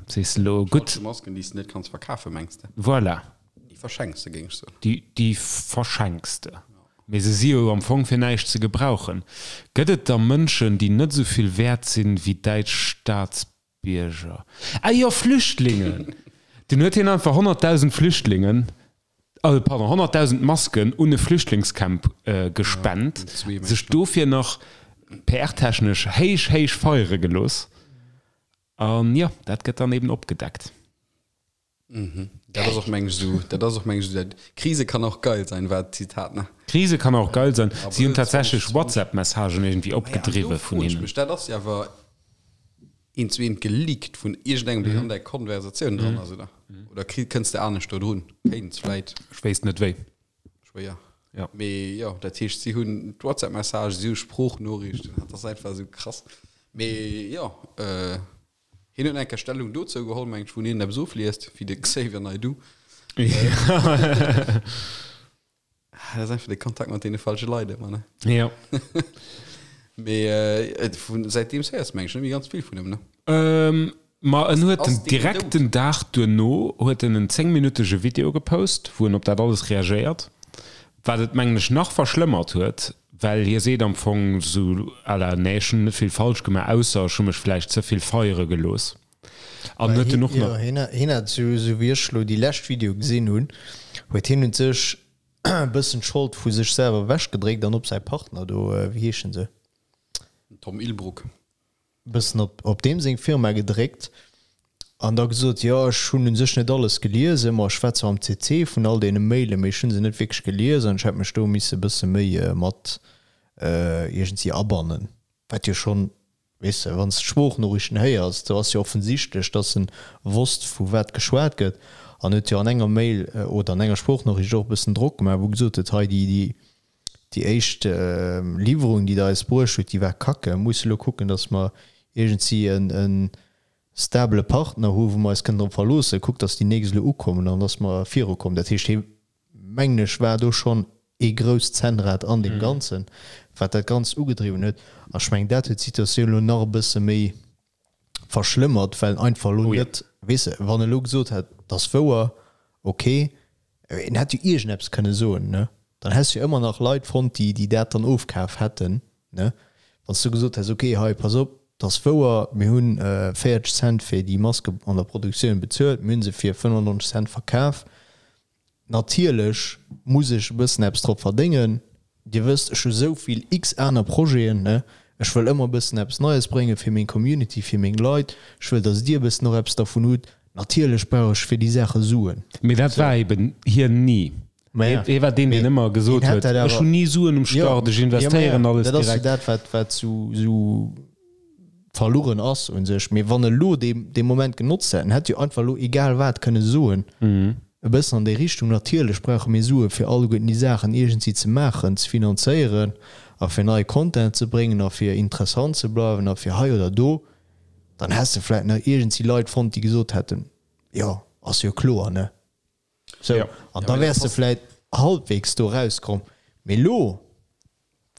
Sees de elo, gutt. Falsche Masken, déi s de net kanns verkafen, mengs de? Voilà. Déi verschenks de, géing ech soen. Déi, déi verschenks de. Mee se si jo am Fong fir näischt ze gebrauchen. Gëtt et da Mënschen, déi net esou vill wäert sinn wéi däitsch Staatsbierger? Ah jo, Flüchtlingen! Dunn huet hien einfach 100.000 Flüchtlingen, also pardon, 100.000 Masken un e Flüchtlingscamp gespent, sech dofir nach PR-technesch héich, héich feiere gelooss. An jo, dat gëtt dann eben opgedeckt. Mhm. Dat ass och meng ech esou, dat ass och meng ech esou, dat Krise kann auch geil sein, war d'Zitat, ne? Krise kann auch geil sein. Si hunn tatsächlech WhatsApp-Messagen iergendwéi opgedriwwe vun hinnen. Mech, dat ass jo awer eent zu eent geleakt vun iergendengem, deen an där Konversatioun dran ass, oder? Oder kri, kënns de anescht do drun? Kéints vläit. Ech wéisst net wéi. Schwéier. Ja. Mee jo, dat heescht, si hunn d'WhatsApp-Messagen, si hu Sproochnoriichten, dat ass einfach esou krass. Mee jo, äh. Hien huet eng Kéier Stellung dozou geholl, mengt ech, wou hien eppes ofliest, wéi de Xavier Naidoo. Dat ass einfach de Kontakt mat deene falsche Leit ëmmer, ne? Jo. Mee vun säitdeems héiers de, meng ech, net méi ganz vill vun him, ne? Ma en huet den direkt den Dag duerno huet en en zéngminuttege Video gepost, wou en op dat alles reagéiert. Wat et mengen ech nach verschlëmmert huet, well hie seet am Fong sou à la, nee ech hunn net vill falsch gemaach, ausser ech hu mech vläicht ze vill feiere gelooss. An huet en och nach. Jo, hien hat, sou wéi ech elo déi lescht Video gesinn hunn, huet hien un sech e bëssen d'Schold vu sech selwer ewechgedréckt an op säi Partner do, wéi heeschen se? Tom Illbruck. Bëssen op op deem seng Firma gedréckt an da gesot, jo ech hunn u sech net alles geliesen, ma ech war zwar am CC vun all deene Mailen, mee ech hu se net wierklech gelies an ech hätt mech do misse e bësse méi mat iergendwéi abannen, wat jo schonn, weess de, wann s de d'Sproochnoriichten héiers, do ass jo offensichtlech, dass en wosst vu wat geschwat gëtt an huet jo an enger Mail oder an enger Sproochnoriicht och e bëssen Drock gemaach, wou gesot huet, hei déi déi Déi éischt Liwwerung, déi Der eis bruecht hutt, déi war kacke. Mir musse elo kucken, datt mer iergendwéi e stabele Partner hu wou mer eis kënnen drop verloossen. Kuckt, datt déi nächst elo ukommen an datt mer virukommen. Dat heescht, hie, mengen ech, war do schonn ee grousst Zännrad an deem Ganzen, wat dat Ganzt ugedriwwen huet. A ech mengen, dat huet d'Situatioun elo nach e bësse méi verschlëmmert, well en einfach elo net, weess de, wann e elo gesot hätt, et ass wouer, ok, en hätt jo iergendeppes kënne soen, ne, dann häss jo ëmmer nach Leit fonnt, déi, déi dat dann ofkaf hätten, ne, wann s du gesot häss, ok, hei, pass op, et ass wouer, mir hunn 40 Cent fir déi Maske an der Produktioun bezuelt, mir hu se fir 95 Cent verkaf, Natierlech muss ech e bëssen eppes drop verdéngen. Dir wësst, ech hu sou vill x aner Projeten, ne? Ech wëll ëmmer e bëssen eppes Neies bréngen fir meng Community, fir meng Leit. Ech wëll, dass dir e bëssen och eppes dervun hutt. Natierlech brauch ech fir déi Saache Suen. Mee dat war eben hien ni. Hie war deen, deen ëmmer gesot huet, ech hunn ni Suen um Start, ech investéieren alles direkt. Dat ass jo dat, wat, wat sou, sou verlueren ass u sech. Mee wann e lo dee, dee Moment genotzt hätt, en hätt jo einfach elo egal wat kënne soen, e bëssen an déi Richtung, natierlech brauche mir Sue fir alleguerten déi Saachen iergendwéi ze maachen, ze finanzéieren a fir neie Content ze bréngen a fir interessant ze bleiwen a fir hei oder do, dann häss de vläicht nach iergendwéi Leit fonnt, déi gesot hätten, jo, ass jo kloer, ne? Sou, an da wäers de vläit halbwegs do rauskomm. Mee lo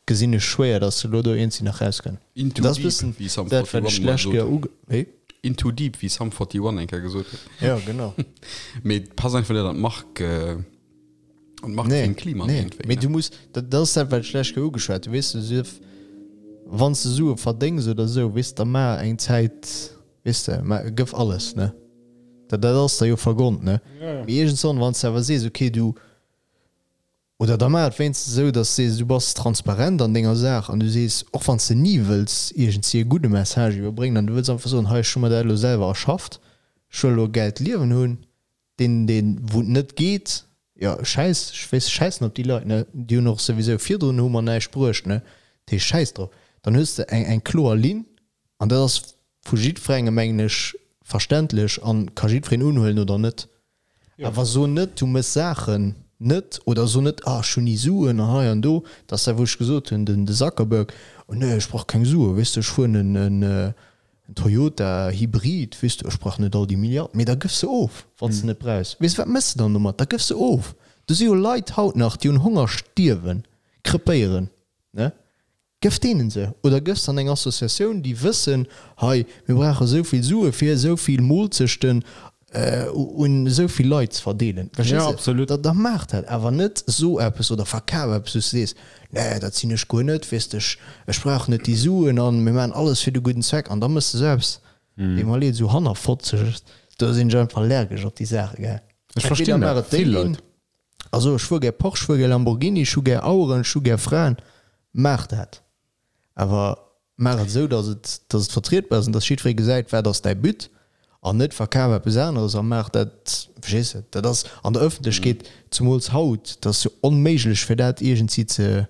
gesinn ech schwéier, dass de lo do iergendwéi nach rauskënn. In too Dat ass deep, bëssen wéi Sum dat, wat 41 ech mol d'lescht gesot Kéier huet. uge-, wéi? In too deep, wéi Sum 41 eng Kéier gesot huet. Jo, genau. Mee et passt einfach net an d'Mark, an Nee, d'Marketingklima nee. iergendwéi, Mee ne? du muss, dat, dat ass dat, wat ech d'lescht Kéier ugeschwat hunn, weess de, sief, wann s de Sue verdéngs oder esou, weess de, da maach eng Zäit, Weess de, mä gëff alles, ne? Dat, dat ass der jo vergonnt, ne? Mee iergendswann, wann s de awer sees, okay, du, oder da maach et wéinstens esou, datt s de sees, du bass transparent an denger Saach an du sees, och wann s de ni wëlls iergendwéi e gudde Message iwwerbréngen an du wëlls einfach soen, hei, ech hu mer dat elo selwer erschafft, ech wëll elo e gäilt Liewen hunn, deen, deen, wou et net geet, jo, schäiss, ech weess, schäissen op déi Leit, ne? Déi hunn och souwisou virdrun hu mer näischt bruecht, ne? Dat heescht, schäiss drop. Dann hues de eng, eng kloer Linn an dat ass vu jiddwerengem, mengen ech, verständlech a ka jiddwereen unhuelen oder net. Awer so net, du méchs Saachen net oder so net, ah, ech hunn ni Suen an hei an do. Dat ass dat, wou ech gesot hunn, den, de Zuckerberg, oh nee, ech brauch keng Suen, weess de, ech fueren en, en, En Toyota Hybrid, weess de, ech brauch net all déi Milliarden, mee da gëff se of, wann s de net brauchs. Weess de, wat méchs de dann domat? Da gëff se of. Do si jo Leit haut nach, déi un Honger stierwen, krepéieren, ne? Gëff deenen se oder gëff se an eng Associatioun, déi wëssen, hei, mir brauche esou vill Sue fir esou vill Moolzechten un esou vill Leit ze verdeelen. Verstees Ja, de? absolut. Da, da maach dat, awer net so eppes oder verkaf eppes, wou s de sees, Nee, dat sinn ech guer net, weess de, ech, ech brauch net déi Suen an mir maachen alles fir de gudden Zweck. An da méchs de sou eppes, deet mer leed, esou hannerfotzeg, do sinn ech einfach allergesch op déi Saache, gell. Ech verstinn Entweder maach dat, et déi vill Linn, Leit. also ech fuer gär Porsche, ech fuer gär Lamborghini, ech hu gär Aueren, ech hu gär Fraen, maach dat. Awer maach et esou, datt et, datt et vertrietbar ass an datt jiddweree gesäit, wat ass däi But, an net verkaf eppes aneres a maach dat, verstees de? Dat ass an der Ëffentlechkeet, zumools haut, dat ass jo onméiglech fir dat iergendwéi ze,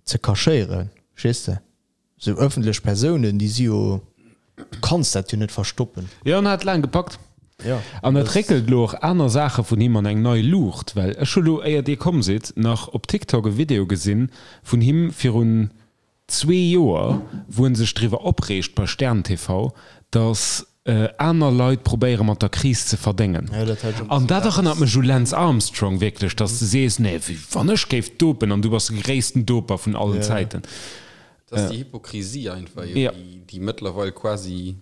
ze cachéieren, verstees de? Esou ëffentlech Persounen, déi si jo, du kanns dat jo net verstoppen. Jo, en hat laang gepackt. Jo. An et réckelt elo och aner Saache vun him an eng nei Luucht, well ech hu lo, éier Dir komm sidd, nach op TikTok e Video gesinn vun him virun zwee Joer, wou en sech driwwer opreegt bei Stern TV, datt aner Leit probéiere mat der Kris ze verdéngen. An dat erënnert mech u Lance Armstrong wierklech, datt s de sees, nee, wann ech géif dopen an du bass de gréissten Doper vun allen Zäiten. Dat ass déi Hypokrisie einfach, déi mëttlerweil quasi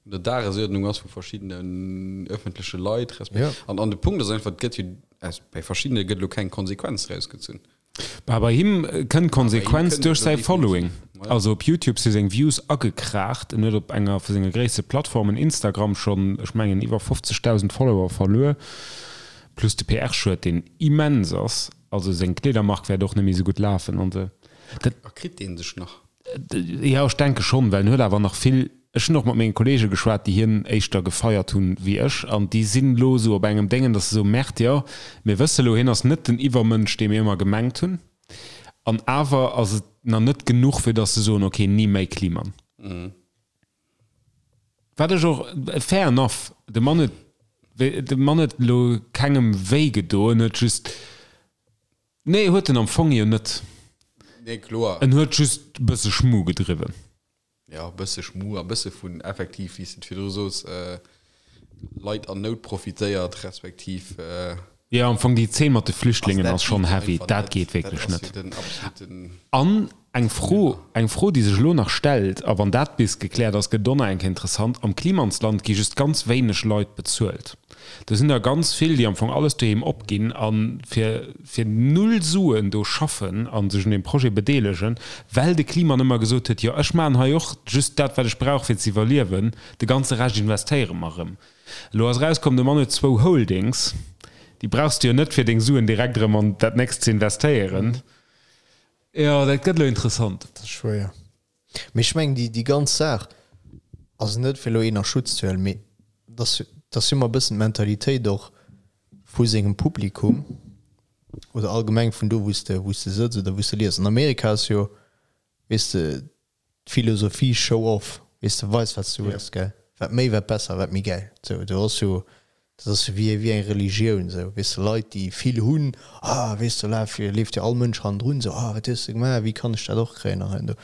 un der Dagesuerdnung ass vu verschiddenen öffentleche Leit resp. Ja. An, an de Punkt ass einfach, et gëtt jo, aus, bei verschiddene gëtt elo keng Konsequenz rausgezunn. Bah, bei him kënnt d'Konsequenz duerch säi Following. Also op Youtube si seng Views agekraacht. En huet op enger vu senge gréisste Plattformen, Instagram, schonn, ech mengen, iwwer 50.000 Follower verluer. Plus de PR-Schued, deen immens ass. Also seng Kleedermark wäert och net méi esou gutt lafen an esou. Dat. A kritt dee sech nach? Jo, ech denke schonn, well en huet awer nach vill, ech hunn och mat menge Kollege geschwat, déi hien éischter gefeiert hunn wéi ech, an déi sinn elo esou op engem Déngen, datt se soen, Merde, jo, mir wësse elo, hien ass net den Iwwermënsch, dee mir ëmmer gemengt hunn, an awer ass et nach net genuch, fir datt se soen, ok, ni méi Kliman. Wat ech och, fair enough, de Mann huet, de Mann huet elo kengem wéi gedoen, huet just, Nee, huet en am Fong jo net. Nee, kloer. En huet just e bësse Schmu gedriwwen. Jo, e bësse Schmu a bësse vun effektiv, wéi s de et virdru sos, Leit an Nout profitéiert, respektiv. Jo, am Fong déi Zeen mat de Flüchtlingen ass schonn heavy. Dat geet wierklech net. An eng Fro, eng Fro, déi sech elo nach stellt, a wann dat bis gekläert ass, gëtt et och nach eng Kéier interessant, Am Klimansland gi just ganz wéineg Leit bezuelt. Do sinn der ganz vill, déi am Fong alles doheem opginn a fir fir null Suen do schaffen a sech un deem Projet bedeelegen, well de Kliman ëmmer gesot huet, jo ech maachen hei och just dat, wat ech brauch fir ze iwwerliewen, de ganze Rescht investéiere mer erëm. Elo ass erauskomm, de Mann huet zwou Holdings, déi brauchs de jo net fir deng Suen direkt erëm an dat nächst ze investéieren. Jo, dat gëtt elo interessant. Dat ass schwéier. Mee ech mengen, déi, déi ganz Saach ass net, fir elo een a Schutz ze huelen, mee dat ass, dat ass jo ëmmer e bëssen d'Mentalitéit och vu sengem Publikum oder allgemeng vun do, wou s de, wou s de sëtz oder wou s de lies. An Amerika ass jo, weess de, d'Philosophie show off, weess de, weis wat s du hues, gell, wat méi, wat besser, wat méi gäil. Sou, do ass jo, dat ass jo wéi, wéi eng Religioun, sou, weess de, Leit, déi vill hunn, ah, weess de, laf, leeft jo all Mënsch hannendrun, sou, ah, wat hues de gemaach, wéi kann ech dat och kréien an hei an do.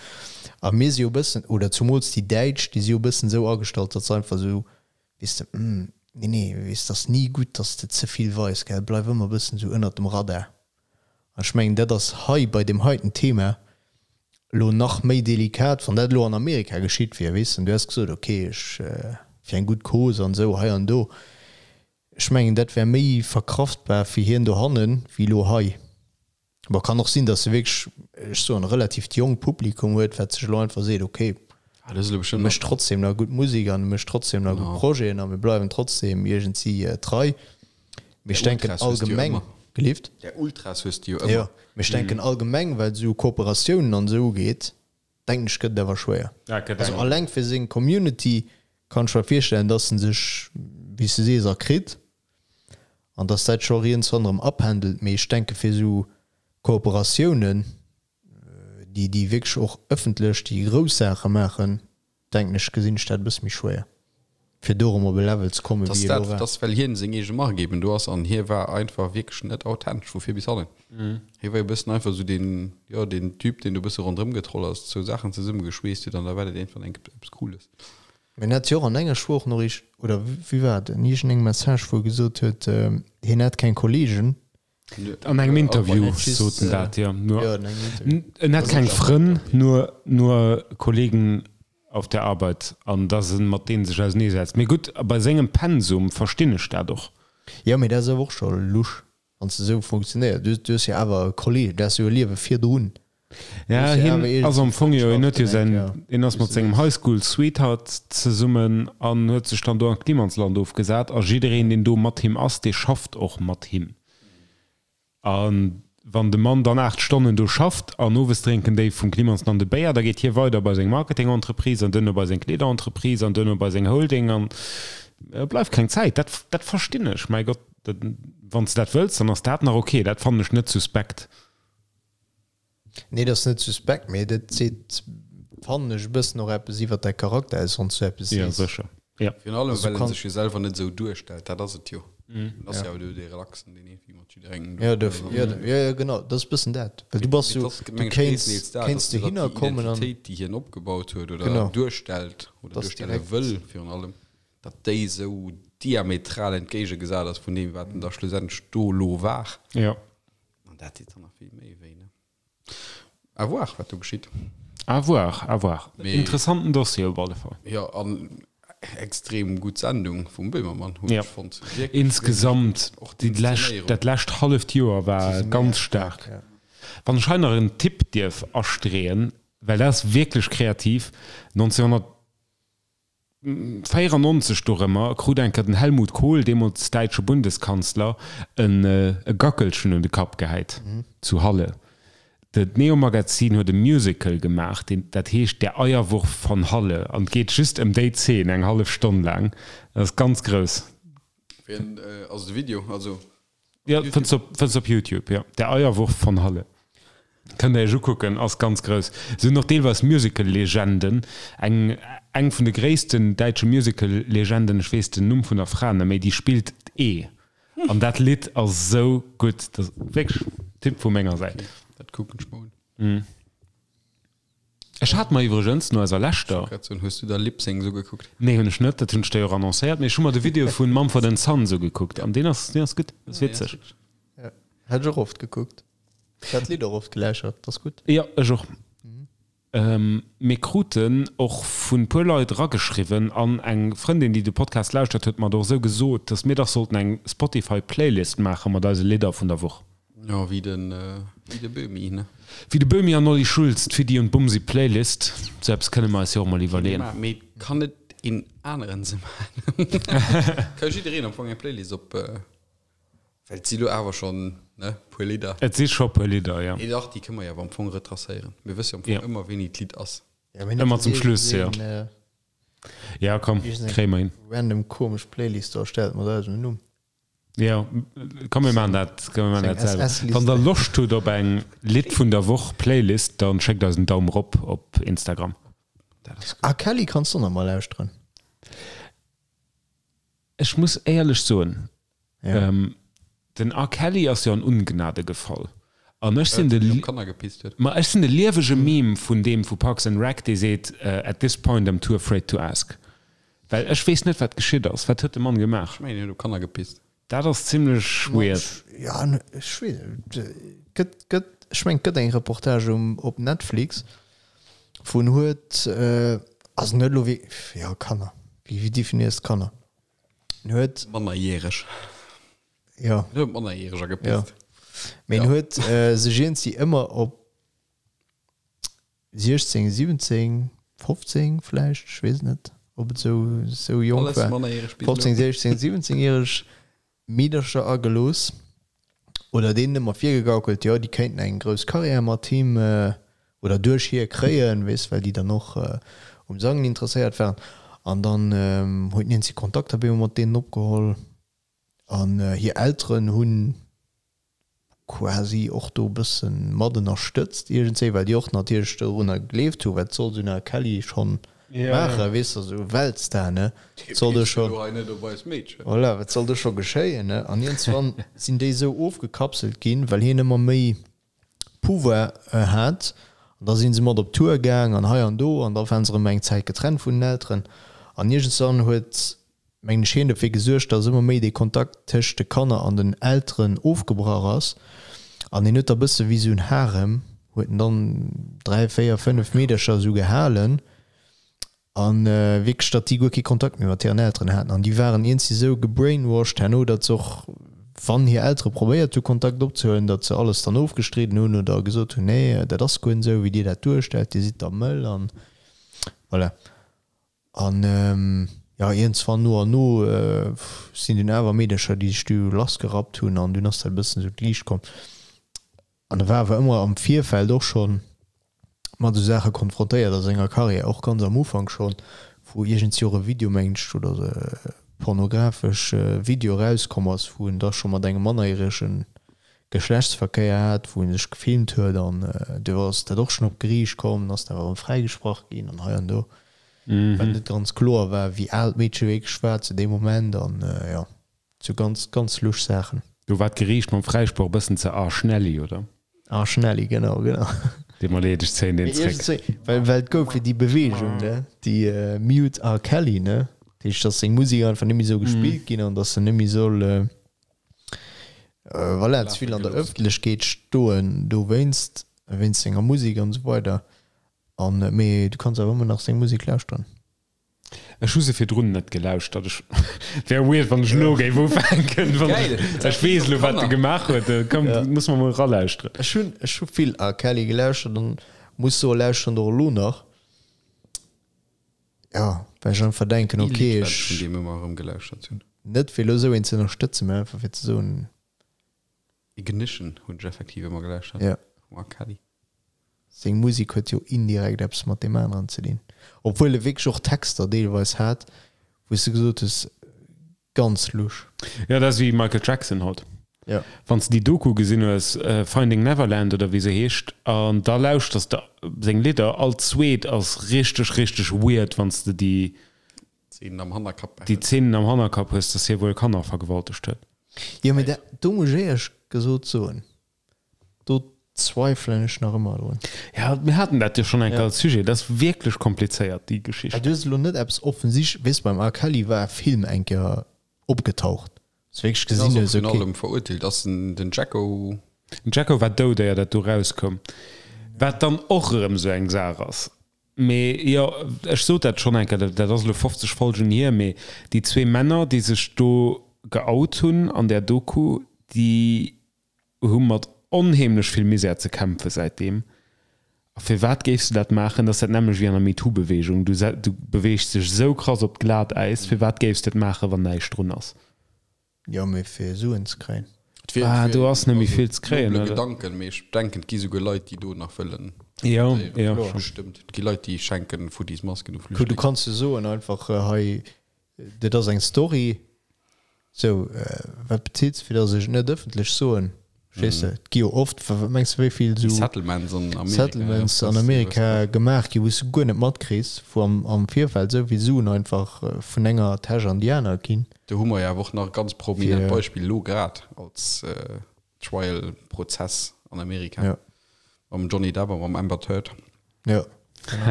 A mir si jo e bëssen, oder zumools déi Däitsch, déi si jo e bëssen esou agestallt, datt se einfach esou, weess de, hm, nee, nee, weess, 't ass ni gutt, datt s de ze vill weis, gell, bleif ëmmer e bëssen esou ënnert dem Radar. An ech mengen, dat ass hei bei deem heiten Thema elo nach méi delikat, wann dat elo an Amerika geschitt wier, weess de, an du häss gesot, okay, ech, fir eng gutt Cause an esou hei an do. Ech mengen, dat wär méi verkraftbar fir hien dohannen, wéi elo hei. Bon, kann och sinn, datt e wierklech, ech soen, e relativt jonkt Publikum huet, wat sech elo einfach seet, okay, e mécht trotzdem nach gutt Musek an e mécht trotzdem nach gutt Projeten a mir bleiwen trotzdem iergendwéi trei. Mee ech denken allgemeng, gelift? Där Ultras hues de jo ëmmer. Jo, mee ech denken allgemeng, wat esou Kooperatiounen an esou ugeet, denken ech, gëtt et awer schwéier. Also alleng fir seng Community kann ech mer virstellen, dass en sech, wéi s de sees, erkritt an dass dat scho rients ronderëm apendelt. Mee ech denke fir esou Kooperatiounen, déi déi wierklech och ëffentlech déi grouss Saache maachen, denken ech, gesinn ech dat e bësse méi schwéier, fir do erëm op e Level ze kommen, wéi e lo war. Dass well hien seng eege Mark eben do ass an hie war einfach wierklech net authentesch vu vir bis hannen. Hie war e bëssen einfach esou deen, jo, deen Typ, deen do e bësse ronderëm getroll ass, zwou Saachen zesummegeschweesst huet an da war dat iergendwann eng eppes Cooles. Mee en hat jo och an enger Sprochnoriicht, oder wéi war et, en iergendengem Message, wou e gesot huet, hien hätt keng Kollegen, An engem Interview sot en dat, jo. En hätt keng Frënn, nur nur Kollegen auf der Arbeit an datt en mat deene sech auseneesetzt. Mee gutt, bei sengem Pensum verstinn ech dat och. Jo, mee dat ass awer och scho lusch, wann s de esou funktionéiers. Du hues jo awer e Kolleg, du has jo e Liewe virdrun. Ja, hien ass am Fong jo, hien huet jo säin, hien ass mat sengem High School Sweetheart zesummen an huet sech dann do an d'Klimansland ofgesat a jiddereen, deen do mat him ass, dee schafft och mat him. A wann de Mann dann 8 Stonnen do schafft an owes drénken déi vum Klimansland e Béier, da geet hie weider bei seng Marketing-Entreprise an duerno bei seng Kleederentreprise an duerno bei seng Holding an bleift keng Zäit. Dat, dat verstinn ech, mäi Gott, wann s de dat wëlls, dann ass dat nach ok, dat fannen ech net suspekt. Nee, dat ass net suspekt, mee dat seet, fannen ech, e bëssen och eppes iwwert däi Charakter aus, wann s du eppes sees. Ja, sécher. Ja. Virun allem, well en sech jo selwer net esou duerstellt, dat ass et jo. En ass jo awer do dee Relaxen, deen iergendwéi mat jidderengem do. Ja, do, ja, ja, ja, genau, dat ass e bëssen dat. Well du bass jo, du kéints, kéints dohinner kommen an. Déi Identitéit, déi hien opgebaut huet oder duerstellt oder duerstelle wëll virun allem, datt déi esou diametral entgéigegesat ass vun deem, wat en da schlussendlech do elo war. Ja. An dat deet dann nach vill méi wéi, ne? À voir, wat do geschitt. À voir, à voir. Mee, Interessanten Dossier op alle Fall. Jo, an extrem gutt Sendung vum Böhmermann, hunn ech fonnt. Wierklech, Insgesamt, och déi lescht, dat lescht halleft Joer war ganz staark. Wann ech hei nach en Tipp dierf astreeën, well dat ass wierklech kreativ, 1994 dorëmmer krut eng Kéier den Helmut Kohl, deemools däitsche Bundeskanzler, e Gackelchen un de Kapp gehäit zu Halle. D'Neo Magazin huet e Musical gemaach, deen, dat heescht Der Eierwurf von Halle an et geet just ëm déi Zeen, eng hallef Stonn laang. Dat ass ganz grouss. Wéi ass de Video? Also Jo, fënns op, fënns op Youtube, jo. Der Eierwurf von Halle. Kënnt der iech ukucken, ass ganz grouss. Se hunn och deelweis Musical-Legenden, eng, eng vun de gréissten däitsche Musical-Legenden, ech weess den Numm vun der Fra net méi, déi spillt d'Ee. An dat Lidd ass esou gutt. Dat ass wierklech Tipp vu menger Säit. Dat kucken ech mer un. Ech hat mer iwwregens no eiser leschter. Ech wollt grad soen, hues du der Lip Syncs ugekuckt? Nee, hunn ech net, dat hunn ech der jo och annoncéiert, mee ech hu mer de Video vun Mumford and Sons ugekuckt an deen ass, deen ass gutt, ass witzeg. Ja, hat ech och oft gekuckt. Ech hat d'Lidd och oft geläuschert, dat ass gutt. Jo, ech och. Mir kruten och vun puer Leit erageschriwwen an eng Frëndin, déi de Podcast lauschtert, huet mer et och esou gesot, dass mir dach sollten eng Spotify Playlist maache mat eise Lidder vun der Woch. Jo, wéi den, wéi de Böhmi, ne? Wéi de Böhmi an Olli Schulz, d'Fiddy und Bumsi Playlist. Sou eppes kënne mer eis jo och mol iwwerleeën. Mee kann net een aneren se maachen? Ka jiddereen am Fong eng Playlist op, well et si lo awer schonn, ne, puer Lidder. Et si scho puer Lidder, jo. Mee dach, déi kënne mer jo awer am Fong retracéieren. Mir wësse jo am Fong ëmmer, wéini d'Lidd ass. Ëmmer zum Schluss, jo. Ja, komm, kréie mer hin. Random komesch Playlist do erstellt mat eisem Numm. Jo, komm mir maachen dat, komm mir maachen dat selwer. Wann der Loscht hutt op eng Lidd vun der Woch Playlist, dann schéckt eis en Daum rop op Instagram. Ah Kelly kanns du och nach mol lauschteren. Ech muss éierlech soen, den R. Kelly ass jo an Ungnade gefall an ech sinn de, ma ech sinn de liewege Meme vun deem vu Parks and Rec, dee seet, At this point I'm too afraid to ask. Well ech weess net wat geschitt ass. Wat huet de Mann gemaach? Ech mengen hien huet op Kanner gepisst. Dat ass zimlech weird. Ja ech weess net. Gëtt gëtt ech mengen et gëtt eng Reportage um op Netflix wou en huet also net elo wéi jo Kanner wéi wéi definéiers de Kanner? En huet. Mannerjäreg. Jo. En huet op Mannerjäreger gepisst. Jo. Mee en huet sech iergendwéi ëmmer op 16, 17, 15 vläicht, ech weess et net, ob et esou, esou jonk war, 15, 16, 17 järeg Meedercher agelooss oder deenen ëmmer virgegaukelt, jo, déi kéinten eng grouss Karriär mat him oder duerch hie kréien, weess, well déi dann och um Sangen interesséiert waren. An dann huet hien si Kontakter op eemol mat deenen opgeholl an hir Elteren hunn quasi och do e bësse mat ënnerstëtzt iergendswéi, well déi och natierlech dorunner gegleeft hu, wat soll esou en R. Kelly schonn maachen, weess de, esou Weltstar, ne, wat soll do scho, voilà, wat soll do scho geschéien, ne? An iergendswann sinn déi esou ofgekapselt ginn, well hien ëmmer méi Pouvoir hat, an da si se mat op Tour gaang an hei an do, an da waren se erëm eng Zäit getrennt vun den Elteren, an iergendswann huet mengen ech, hien dofir gesuergt, datt ëmmer méi dee Kontakt tëscht de Kanner an den Elteren ofgebrach ass. An hien huet da bësse wéi esou en Harem, huet en dann 3, 4, 5 Meedercher esou gehalen a wierklech, datt déi guer kee Kontakt méi mat hiren Elteren haten. An déi waren iergendwéi esou gebrainwashed herno, datt se och, wann hir Eltere probéiert hu Kontakt opzehuelen, datt se alles dann ofgestridden hunn oder gesot hunn, nee, dat ass guer net esou, wéi dir dat duerstellt, dir sidd da mëll an voilà. An jo, iergendswann no an no sinn dunn awer Meedercher, déi sech du lassgerappt hunn an dunn ass dat e bëssen esou d'Liicht komm. An e war awer ëmmer am Virfeld och schonn mat esou Saache konfrontéiert a senger Karriär, och ganz am Ufank schonn, wou iergendswéi och e Video, mengen ech, oder e pornografesch Video erauskomm ass, wou en da scho mat engem mannerjärege Geschlechtsverkéier hat, wou en sech gefilmt huet an du ass dat och schonn op d'Geriicht komm, ass dann awer erëm fräigesprach ginn an hei an do. Well net ganz kloer war, wéi al d'Meedche wierklech war zu deem Moment an jo, sou ganz, ganz lusch Saachen. Do war d'Geriicht mam Fräisproch e bëssen ze arschnelli, oder? Arschnelli, genau, genau. Deet mer leed, ech zéien deen zréck. Well, well et gouf jo déi Beweegung, ne, déi Mute R. Kelly, ne, dat heescht, datt seng Musek einfach net méi soll gespillt ginn an datt en net méi soll, voilà, ze vill an der Ëffentlechkeet stoen dowéinst, wéinst senger Musek an esou weider. An, mee du kanns awer ëmmer nach seng Musek lauschteren. Ech hu se virdrun net gelauschtert. Ech wär weird, wann ech elo géif ufänken. Wann Geil. ech weess elo, wat e gemaach huet. Komm, muss mer mol eralauschteren. Ech hunn, ech hu vill R. Kelly gelauschtert an muss soen, lauschteren och elo nach. Ja, well ech einfach denken, Ee okay, Lidd, wat ech ech vun deem ëmmer erëm gelauschtert hunn. net fir elo esou een ze ënnerstëtzen, mä einfach fir ze soen, Ignition hunn ech effektiv ëmmer gelauschtert Ja. vum R. Kelly. Seng Musek huet jo indirekt eppes mat deem aneren ze dinn. Obwuel e wierklech och Texter deelweis hat, wou s de gesot hues, ganz lusch. Jo, dat ass wéi Michael Jackson haut. Ja. Wann s de déi Doku gesinn hues, Finding Neverland oder wéi se heescht, an da lauschters de seng Lidder, all zweet ass richteg, richteg weird, wann s de déi Zeenen am Hannerkapp déi behälls. Zeenen am Hannerkapp hues, dass hie wuel Kanner vergewaltegt huet. Jo, mee dat, do muss ech éierlech gesot soen, do zweifelen ech nach ëmmer drun. Ja, mir haten dat jo schonn eng Kéier als Sujet. Dat ass wierklech komplizéiert, déi Geschicht. Du hues elo net eppes offensichtlech, weess, beim R. Kelly war e Film eng Kéier opgetaucht, wou s du wierklech Deen ass gesinn och hues, vun okay. allem verurteelt. Ass den, den Jacko. Den Jacko war dout, éier dat do erauskoum, wat dann och erëm esou eng Saach ass. Mee jo, ech sot dat schonn eng Kéier, dat ass elo 50 Folgen hier, mee déi zwee Männer, déi sech do geout hunn an där Doku, déi hu mat onheemlech vill Misär ze kämpfe säitdeem. A firwat géifs de dat maachen? Dat ass dat nämmlecht wéi an der MeToo-Beweegung, du du beweegs dech esou krass op d'Glatäis, firwat géifs de et maachen, wann näischt drun ass? Jo, mee fir Suen ze kréien. Et wier, Ah, et do wier ass net méi also vill ze kréien, nobele oder? Gedanken, mee ech denken, et gi souguer Leit, déi do nach wëllen Jo, tentéieren. jo, Kloer, schon. bestëmmt. Et gi Leit, déi schenken futtis Masken u Kuck, du Flüchtlingen. kanns jo soen einfach, hei, dat ass eng Story, sou, wat bezilt se, fir datt ech et net ëffentlech soen? Verstees de? Et gi jo oft, wat mengs de, wéi vill Déi esou Settlements an Amerika, ja, Settlements an das, Amerika gemaach gi, wou s de guer net matkriss, wou am, am Virfeld esou vill Suen einfach vun enger Täsch an déi aner ginn. Do hu mer jo awer och nach e ganz prominent Fir. Beispill elo grad als Trial-Prozess an Amerika Ja. mam Johnny Depp a mam Amber Heard. Ja.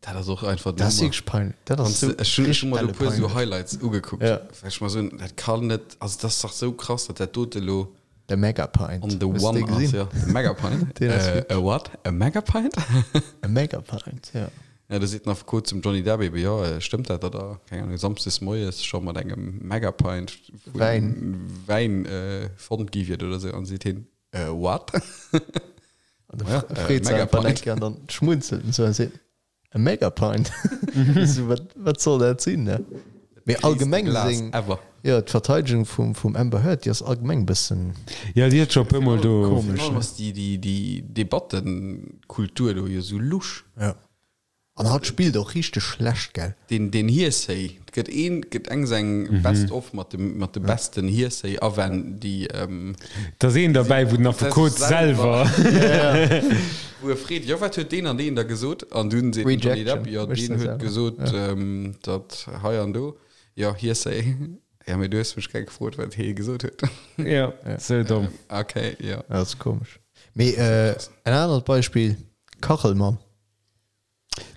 Dat ass och einfach Dat ass wierklech peinlech. Dat ass sou Ech hunn ech hunn mer do e puer sou peinlech. Highlights ugekuckt, Ja. well ech mer soen, dat kann net, also dat ass dach sou krass, datt dat dote elo De Megapint. on the Hues de one dee ass, gesinn? jo. De Megapint. Deen ass Äh, wierklech. a what? A Megapint? E Megapint, ja. Ja, do seet den Affekot zum Johnny Depp ebe, jo, stëmmt dat, datt der, keng Ahnung, samsdes moies scho mat engem Megapint vu Wäin. Wäin fonnt gi wiert oder sou? An seet hien, äh, what? An da Ja, freet se einfach Megapint. eng Kéier an dann schmunzelt en sou a seet, E Megapint? So, wat, wat soll dat sinn, ne? Mee allgemeng Glas seng, ever. jo, d'Verteidegung vum, vum Amber Heard, déi ass allgemeng e bëssen Ja, déi huet scho e puer Mol do. komesch, Virun allem ne? ass déi, déi, déi Debattenkultur do jo sou lusch. Ja. An hatt spillt och richteg schlecht, gell? Deen, deen Hearsay, et gëtt een, gëtt eng seng Best of mat dem, mat de besten Hearsay-Awänn, déi, Et ass een derbäi, wou den Affekot selwer. Wou e freet, jo wat huet deen an deen da gesot? An dunn seet den Johnny Depp, jo deen huet gesot, datt hei an do, jo Hearsay, jo mee du hues mech grad gefrot, wat hee gesot huet. Jo, sou domm. Ok, jo. Dat ass komesch. Mee en anert Beispill, Kachelmann.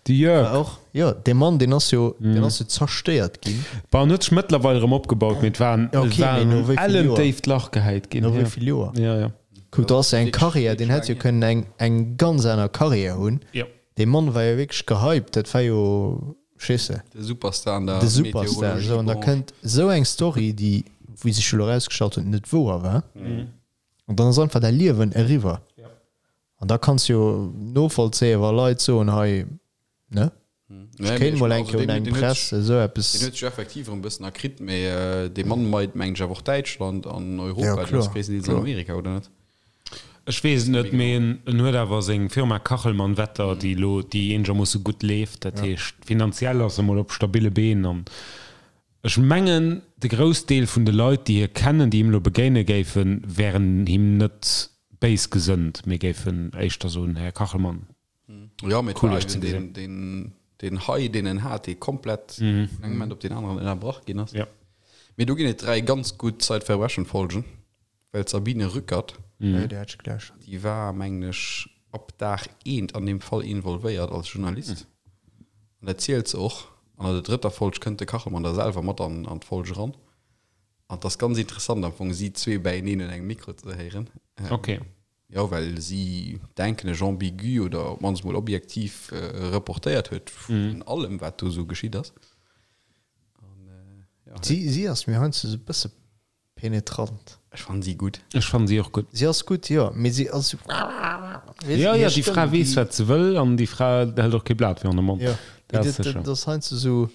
De Jörg. War och, jo, dee Mann, deen ass jo, deen ass jo zerstéiert ginn. Bon, en huet sech mëttlerweil erëm opgebaut, mee et war en, Ja, okay, et war mee no en wéi vill ellen Joer? déift Lach gehäit ginn. No wéi Ja. vill Joer? Ja, ja. Kuck, do ass jo eng Wierklech Karriär, deen hätt jo wierklech kënnen eng, eng ganz aner Karriär hunn. Ja. Dee Mann war jo wierklech gehypt, dat war jo, verstees de, De Superstar an der de Superstar. Esou, an da Meteorologiebranche. kënnt esou eng Story, déi, wéi sech elo erausgestallt huet, net wouer war. An dann ass einfach däi Liewen eriwwer. An da kanns jo novollzéien, wa Leit soen, hei, ne? Ech kéint mol eng Kéier un eng Press esou eppes. Deen huet sech effektiv erëm e bëssen erkritt, mee dee Mann meit, mengen ech, awer och Däitschland an Europa, Ja, deen ass kloer, gréisstendeels an kloer. Amerika, oder net? Ech weess et net, mee en en huet awer seng Firma Kachelmann Wetter, déi elo, déi eenegermoosse gutt leeft. Dat heescht, finanziell ass e mol op stabille Been an Ech mengen, de Groussdeel vun de Leit, déi hie kennen, déi him elo begéine géifen, wären him net béis gesënnt, mee géifen éischter soen, Här Kachelmann, Jo, mee et cool war Iech ze eben gesinn. deen, deen, deen High, deen en hat, dee komplett vun engem Moment op deen aneren ënnerbrach ginn ass. Ja. Mee do ginn et 3 ganz gutt Zeitverbrechen-Folgen, well d'Sabine Rückert, Ja, déi hat ech gelauschtert. déi war, mengen ech, ab Dag eent an deem Fall involvéiert als Journalist. An dat zielt se och. An an der drëtter Folg kënnt de Kachelmann da selwer mat an an d'Folg eran. An et ass ganz interessant am Fong si zwee bäieneen un engem Mikro ze héieren. Okay. Jo, well si, denken ech, ambigu oder op d'mannst mol objektiv reportéiert huet vun allem, wat do esou geschitt ass. An, ja. Si, si ass mir heiansdo esou e bësse penetrant. Ech fannen si gutt. Ech fannen si och gutt. Si ass gutt, jo, mee si ass esou, weess Jo, jo, déi Fra weess, wat se wëll an déi Fra hält och kee Blat virun de Mond. Jo, mee dat ass heiansdo esou,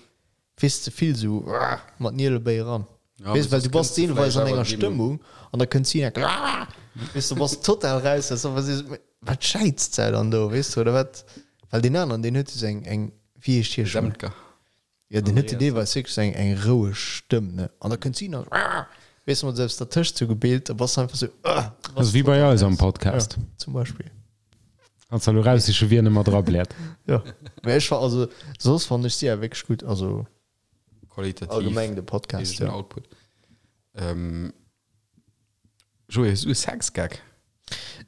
Weess ze vill sou mat Nielebéi eran. Weess well du bass deelweis an enger Stëmmung an da kënnt si enk weess du bass total raus weess du was wat schäizt se dann do weess du oder wat well deen aneren deen huet jo sou eng eng wéi heescht hie schonn jo deen huet jo deelweis wierklech sou eng eng roueg Stëmm ne an da kënnt si nach weess du mat esou eppes dertëscht sou gebeelt da bass du einfach sou bass wéi bei eis am Podcast zum Beispill. Kanns der elo raussiche wien ëmmer dra bläert. Jo, mä ech fa also soss fannen ech si awer wierklech gutt, also Qualitativ allgemeng de Podcast, héijen jo. Output. Ähm, Joé, hues du e Sexgag?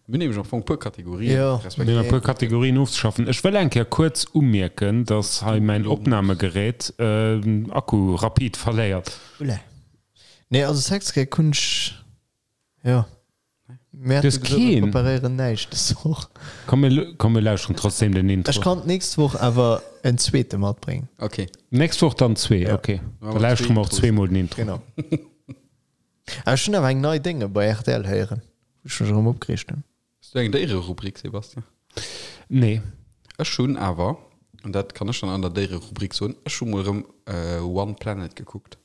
Mir hunn nämlech am Fong e puer Kategorien, Jo. Mir hunn respektiv e puer Kategorien ofzeschaffen. Ech wëll eng Kéier kuerz umierken, dass hei mäin Opnamegerät Akku rapid verléiert. Oula. Nee, also Sexgag hunn ech, jo. Mir Du hues hate gesot, mir keen? preparéieren näischt dës Woch. Komm, mir, komm, mir lauschteren trotzdem den Intro. Ech kann d'nächst Woch awer en zweete matbréngen. Okay. Nächst Woch dann zwee, Ja. okay. Machen Da wir lauschtere zwee mer och Intros. zweemol den Intro. Genau. Awer ech hunn awer eng nei Dénge bei rtl héieren, wou ech mech erëm opgereegt hunn. Hues du eng Déiererubrik, Sebastian? Nee. Ech hunn awer, an dat kann ech dann an der Déiererubrik soen, ech hu mol erëm One Planet gekuckt.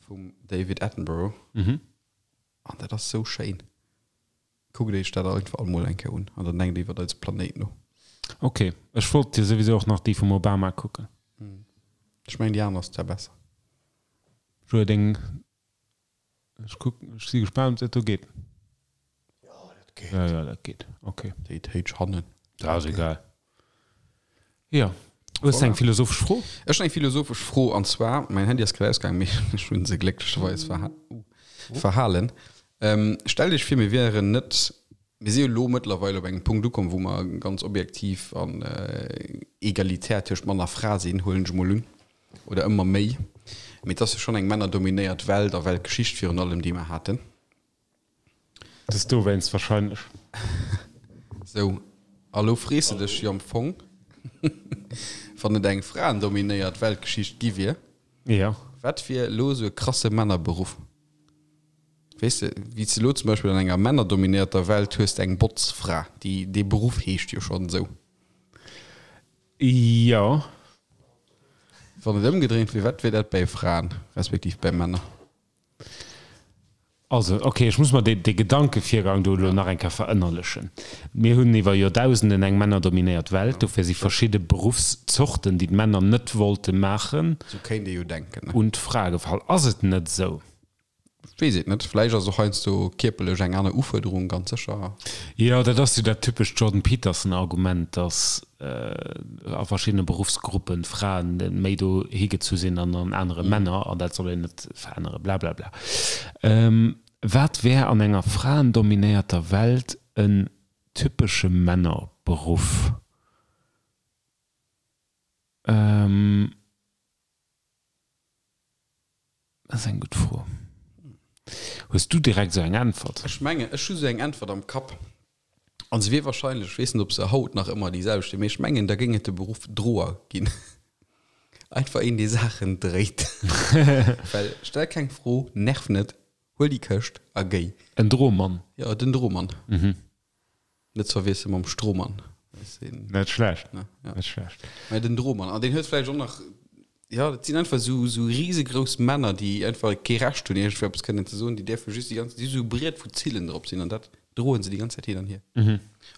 Vum David Attenborough. An dat ass sou schéin. Kuckt iech dat einfach all mol eng Kéier un an dann denkt iwwert eise Planéit no. Ok, ech wollt jo souwisou och nach déi vum Obama kucken. Ech mengen déi aner ass zwar besser. Joé, deng, ech kucken, ech si gespaant ob dat do geet. Jo, dat geet. Jo, jo, dat geet, ok. Déi héich hannen. Dat ass egal. Jo. Hues de eng philosophesch Fro? Ech hunn eng philosophesch Fro, an zwar, mäin Handy ass grad ausgaangen, mee ech hunn se glécklecherweis verhalen. Stellt Iech vir, mir wieren net, mir si jo elo mëttlerweil op engem Punkt ukomm, wou mer ganz objektiv an egalitär tëscht Mann a Fra sinn, huelen ech emol un, oder ëmmer méi. Mee et ass jo schonn eng männerdominéiert Welt a Weltgeschicht virun allem, déi mer haten. Dat ass dowéinst wahrscheinlech. Sou, a lo frees de dech jo am Fong, wann et eng fraendominéiert Weltgeschicht gi wier, Jo. wat wier elo esou e krasse Männerberuff? Weess de, wéi s de elo zum Beispill an enger männerdominéierter Welt hues de eng Botzfra, déi, dee Beruff heescht jo schonn esou. Jo. Wann et ëmgedréint wier, wat wier dat bäi Fraen, respektiv bäi Männer? Also, ok, ech muss mer dee Gedankevirgang do elo nach eng Kéier verënnerlechen. Mir hunn iwwer Joerdausenden eng männerdominéiert Welt, dofir si verschidde Beruffszorten, déi d'Männer net wollte maachen, Esou kéint ee jo denken, ne? un d'Frae gefall. Ass et net esou? Ech weess et net. Vläicht ass och heiansdo kierperlech eng aner Ufuerderung, ganz sécher. Jo, dat ass jo dat typescht Jordan Peterson-Argument, dass a verschiddene Beruffsgruppen Fraen méi do higezu sinn an an anere Männer an dat soll een net verännere blablabla. Wat wär an enger fraendominéierter Welt en typesche Männerberuff? Dat ass eng gutt Fro. Hues du direkt esou eng Äntwert? Ech mengen, ech hu sou eng Äntwert am Kapp. An se wier wahrscheinlech, ech weess net, ob se haut nach ëmmer déi selwecht wier, mee ech mengen, da géing et de Beruff Droer ginn. Einfach een, dee Saachen dréit. Well stell keng Fro, nerv net, huel déi Këscht a géi. En Dromann. Jo, den Dromann. Net ze verwiessele mam Strohmann. Net schlecht. Ne, ja. Net schlecht. Mä den Drohmann, an deen huet vläicht och nach, jo, dat sinn einfach esou, esou risegrouss Männer, déi einfach kee Recht hunn, iergendwéi eppes kënnen ze soen, déi däerfe just déi ganz, déi hu sou e Briet, wou Zillen drop sinn, an dat droen se déi ganz Zäit hin an hier.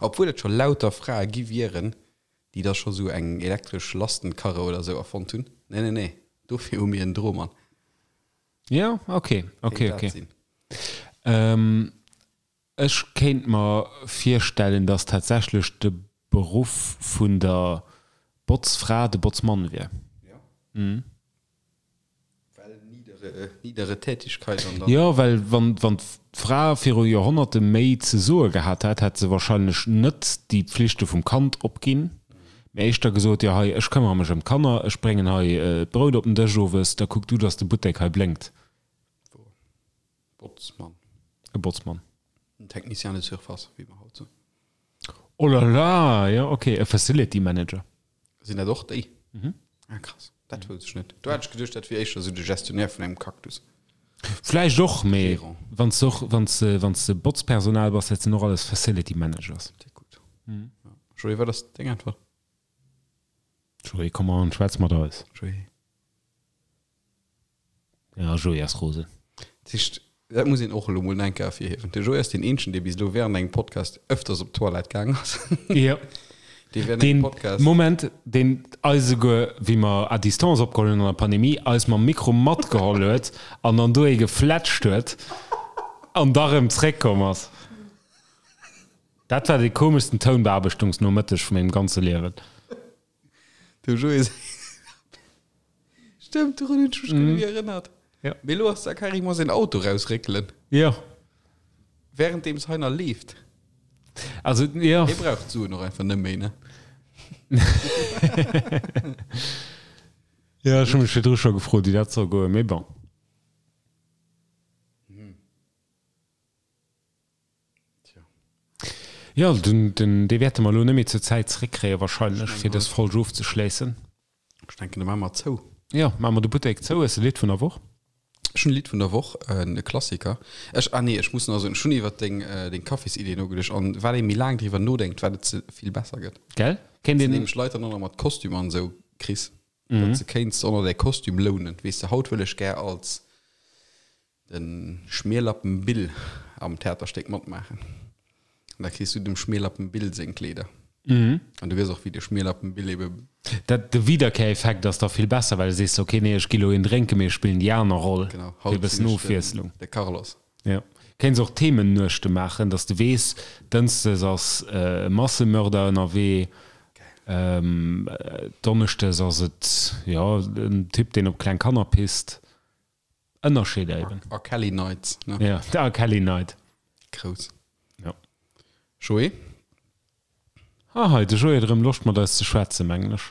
Obwuel et scho lauter Frae gi wieren, déi da scho sou eng elektresch Lastenkarre oder sou erfonnt hunn. Nee, nee, nee, dofir hu mir en Drohmann. Jo, okay, okay, Kéint dat okay. sinn. Ech kéint mer virstellen, dass tatsächlech de Beruff vun der Botzfra de Botzmann wier. Jo. Well niedere, niedere Tätigkeit an dann. Jo, well wann, wann d'Fra viru Joerhonnerte méi ze soe gehat hätt, hätt se wahrscheinlech net déi Pflichte vum Kand opginn, mee éischter gesot, jo hei, ech këmmere mech ëm d'Kanner, ech bréngen hei d'Brout op den Dësch owes, da kuck du, dass de Buttek hei blénkt. Wouer. Botzmann. E Botzmann. En Technicien de surface, wéi mer haut soen. Oh la la, jo ok, e Facility Manager. Sinn dat och déi? Mhm. Ah krass, dat wousst ech net. Do hat ech geduecht, dat wier éischter esou de Gestionnaire vun engem Cactus. Vläicht och, mee wann s de och, wann s de, wann s de Botzpersonal bass, dat sinn och alles Facility Managers. Sehr gutt. Ja. Joé, wat ass deng Äntwert? Joé, komm an, schwätz mat eis. Joé. Ja, Joé ass rosen. Dat heescht, dat muss een och elo mol eng Kéier ervirhiewen, de Joé ass deen eenzegen, dee bis elo während engem Podcast ëfters op d'Toilette gaang ass. Jo. Dee während engem Deen, Podcast. Moment, deen eis esouguer, wéi mer à distance opgeholl hunn an der Pandemie, eis mam Mikro matgeholl huet an dann do ee gefletscht huet an da rëm zréckkomm ass. Dat war dee komeschsten Tounbeaarbechtungsnomëtteg vu mengem ganze Liewen. Dem Joé säi Stëmmt, dorun hunn ech mech guer net méi erënnert. Ja. Mee elo ass da carrément säin Auto rausréckelen. Jo. Währenddeems hei nach leeft. Also, jo. Hie brauch d'Suen och einfach net méi, ne? Jo, ech hu mech virdru scho gefrot, wéi dat soll goen, mee bon. Jo, den, den, dee wäerte mer elo net méi zur Zäit zeréckkréie wahrscheinlech, fir dës Folg ofzeschléissen. Ech denken, da maache mer zou. Jo, maache mer de Buttek zou. Hues de Lidd vun der Woch? Ech hunn e Lidd vun der Woch, e Klassiker. Ech, ah nee, ech muss nach soen, ech hunn iwwer deng, deng Kaffisidee nogeduecht an wat ee méi laang driwwer nodenkt, wat et ze vill besser gëtt. Gell? Kéint Dass de een. nämlech Leit dann och nach mat Kostüm an esou kriss, datt se kéints och nach däi Kostüm lounen. Weess de, haut wëll ech gär als De Schmierlappen Bill am Theaterstéck matmaachen. An da kriss du dem Schmierlappen Bill seng Kleeder. An du weess och, wéi de Schmierlappen Bill ebe. Dat, de Wiederkehreffekt ass da vill besser, well du sees, ok, nee, ech gi lo een drénken, mee ech spillen déi aner Roll, Genau, fir e haut bëssen sinn ech den, Ofwiesslung. de Carlos. Jo. Kéints och Themennuechte maachen, dass de weess, Dënschdes ass e Massemörder ënnerwee, Donneschdes ass et, jo, en Typ, deen op kleng Kanner pisst. Ënnerscheeder eben. R. Kelly Nights, ne? Ja, de R. Kelly Night. Grouss. Ja. Joé? Ah, hei, de Joé huet erëm Loscht mat eis ze schwätzen, mengen ech.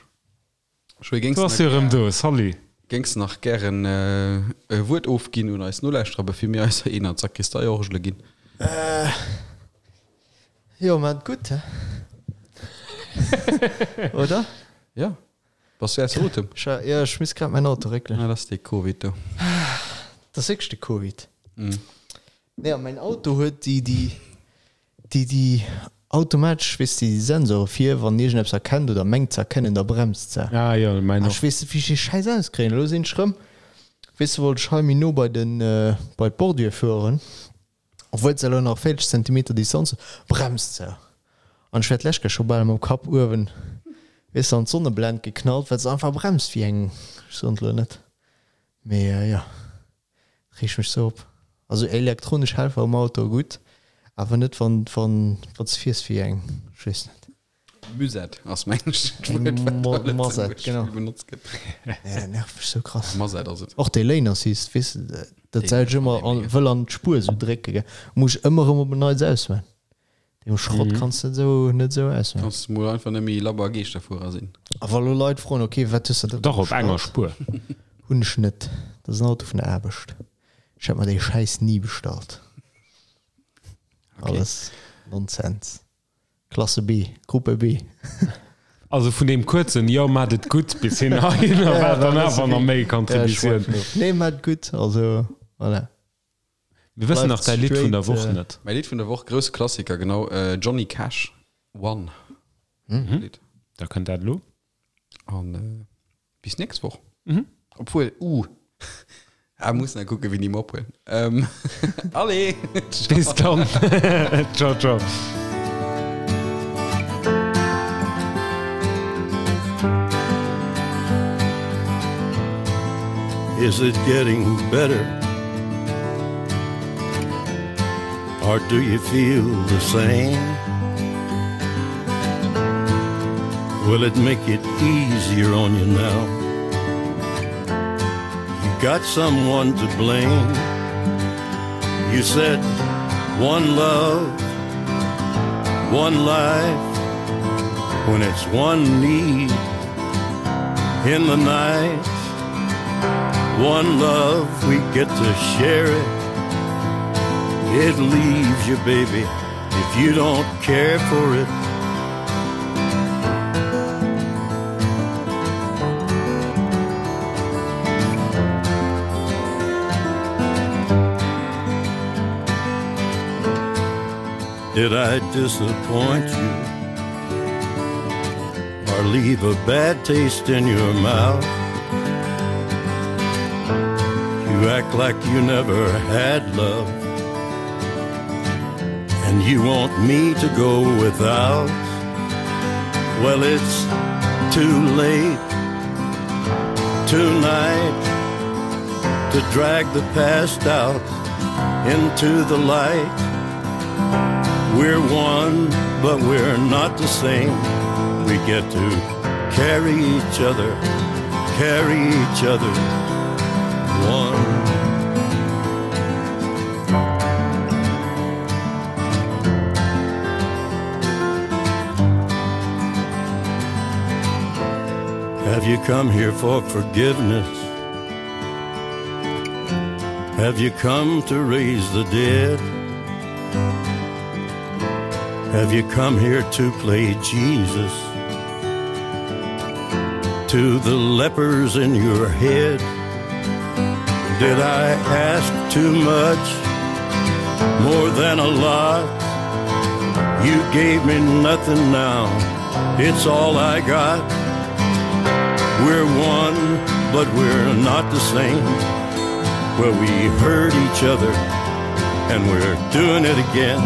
Joé, géings Du du ass jo nach erëm gär, do, salut. géings du nach gären e Wuert ofginn un eis Nolauschterer, bevir mir eiser een an d'Sakristeiorgele ginn? Jo, maat gutt, he? Oder? Ja. Bass du ausser Otem? Jo, ech misst grad mäin Auto réckelen. Ah, dat ass dee Covid do. Dat ass wierklech de Covid. Nee, a mäin Auto huet déi, déi, déi, déi automatesch, weess de, déi Sensore vir, wann iergendeppes erkennt oder mengt ze erkennen, da bremst se. Ah jo, mäin A och. ech weess net, wéi ech dee Schäiss auskréien. Elo sinn ech rëm, weess de, wollt ech hei méi no bei den, bei d'Bordure fueren. Obwuel se elo nach 40 Zentimeter Distanz huet, bremst se. An ech wär d'lescht Kéier scho bal mam Kapp uewen, weess de, an d'Sonneblend geknallt, well se einfach bremst wéi eng, ech soen et elo net, mee jo, reegt mech sou op. Also elektronesch Helfer um Auto, gutt, awer net wann, wann, wann s de fiers wéi eng, ech weess net. Musette ass mengen ech dat Wuert, wat a Masette, Lëtzebuerg genau. vill benotzt gëtt. Nee, dat nervt mech sou krass. Masette ass et. Och dee Lane Assist, weess de, dat Deen säit ech ëmmer an, wëll an d'Spuer sou drécke, gell, muss ech ëmmer erëm op en Neits ausman. Deem Schrott kanns de net sou, net sou ausman. Kanns mol einfach net méi labber Geeschterfuerer sinn. A wa lo Leit froen, ok, wat hues de da Dach, op enger bestallt? Spuer. Hunn ech net. Dat ass en Auto vun der Aarbecht. Ech hätt mer dee Schäiss ni bestallt. Alles Nonsens. Klasse B, Gruppe B. Also vun deem kuerzen Jo, maat et gutt bis hin heihinner war dann awer nach méi Contributioun. Nee, maat et gutt, also voilà. Mir wëssen nach däi Lidd vun der Woch net. Mäi Lidd vun der Woch, grousse Klassiker, genau, Johnny Cash, One. Lidd. Da kënnt dat elo. An bis nächst Woch. Obwuel, uh, ah, muss nach kucken, wéini mer ophuelen. Ähm, allez! Bis dann. Ciao, ciao. Is it getting better? Or do you feel the same? Will it make it easier on you now? You got someone to blame. You said one love, one life, when it's one need in the night. One love, we get to share it. It leaves you, baby, if you don't care for it. Did I disappoint you? Or leave a bad taste in your mouth? You act like you never had love And you want me to go without Well, it's too late Tonight To drag the past out Into the light We're one, but we're not the same We get to carry each other Carry each other One Have you come here for forgiveness? Have you come to raise the dead? Have you come here to play Jesus? To the lepers in your head? Did I ask too much? More than a lot? You gave me nothing now. It's all I got. We're one, but we're not the same. Well, we hurt each other and we're doing it again.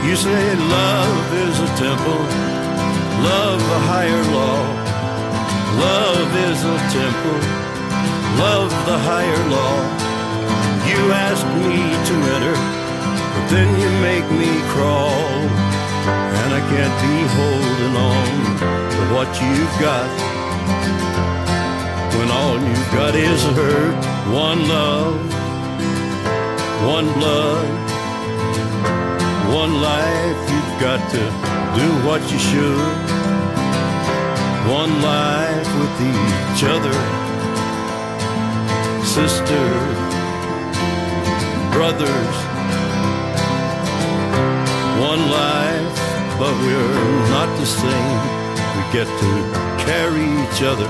You say love is a temple, love a higher law. Love is a temple, love the higher law. You ask me to enter, but then you make me crawl. And I can't be holding on to what you've got. When all you've got is hurt, one love, one blood, one life, you've got to do what you should. One life with each other, sister, brothers. One life, but we're not the same. We get to carry each other,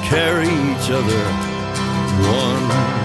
carry each other, one.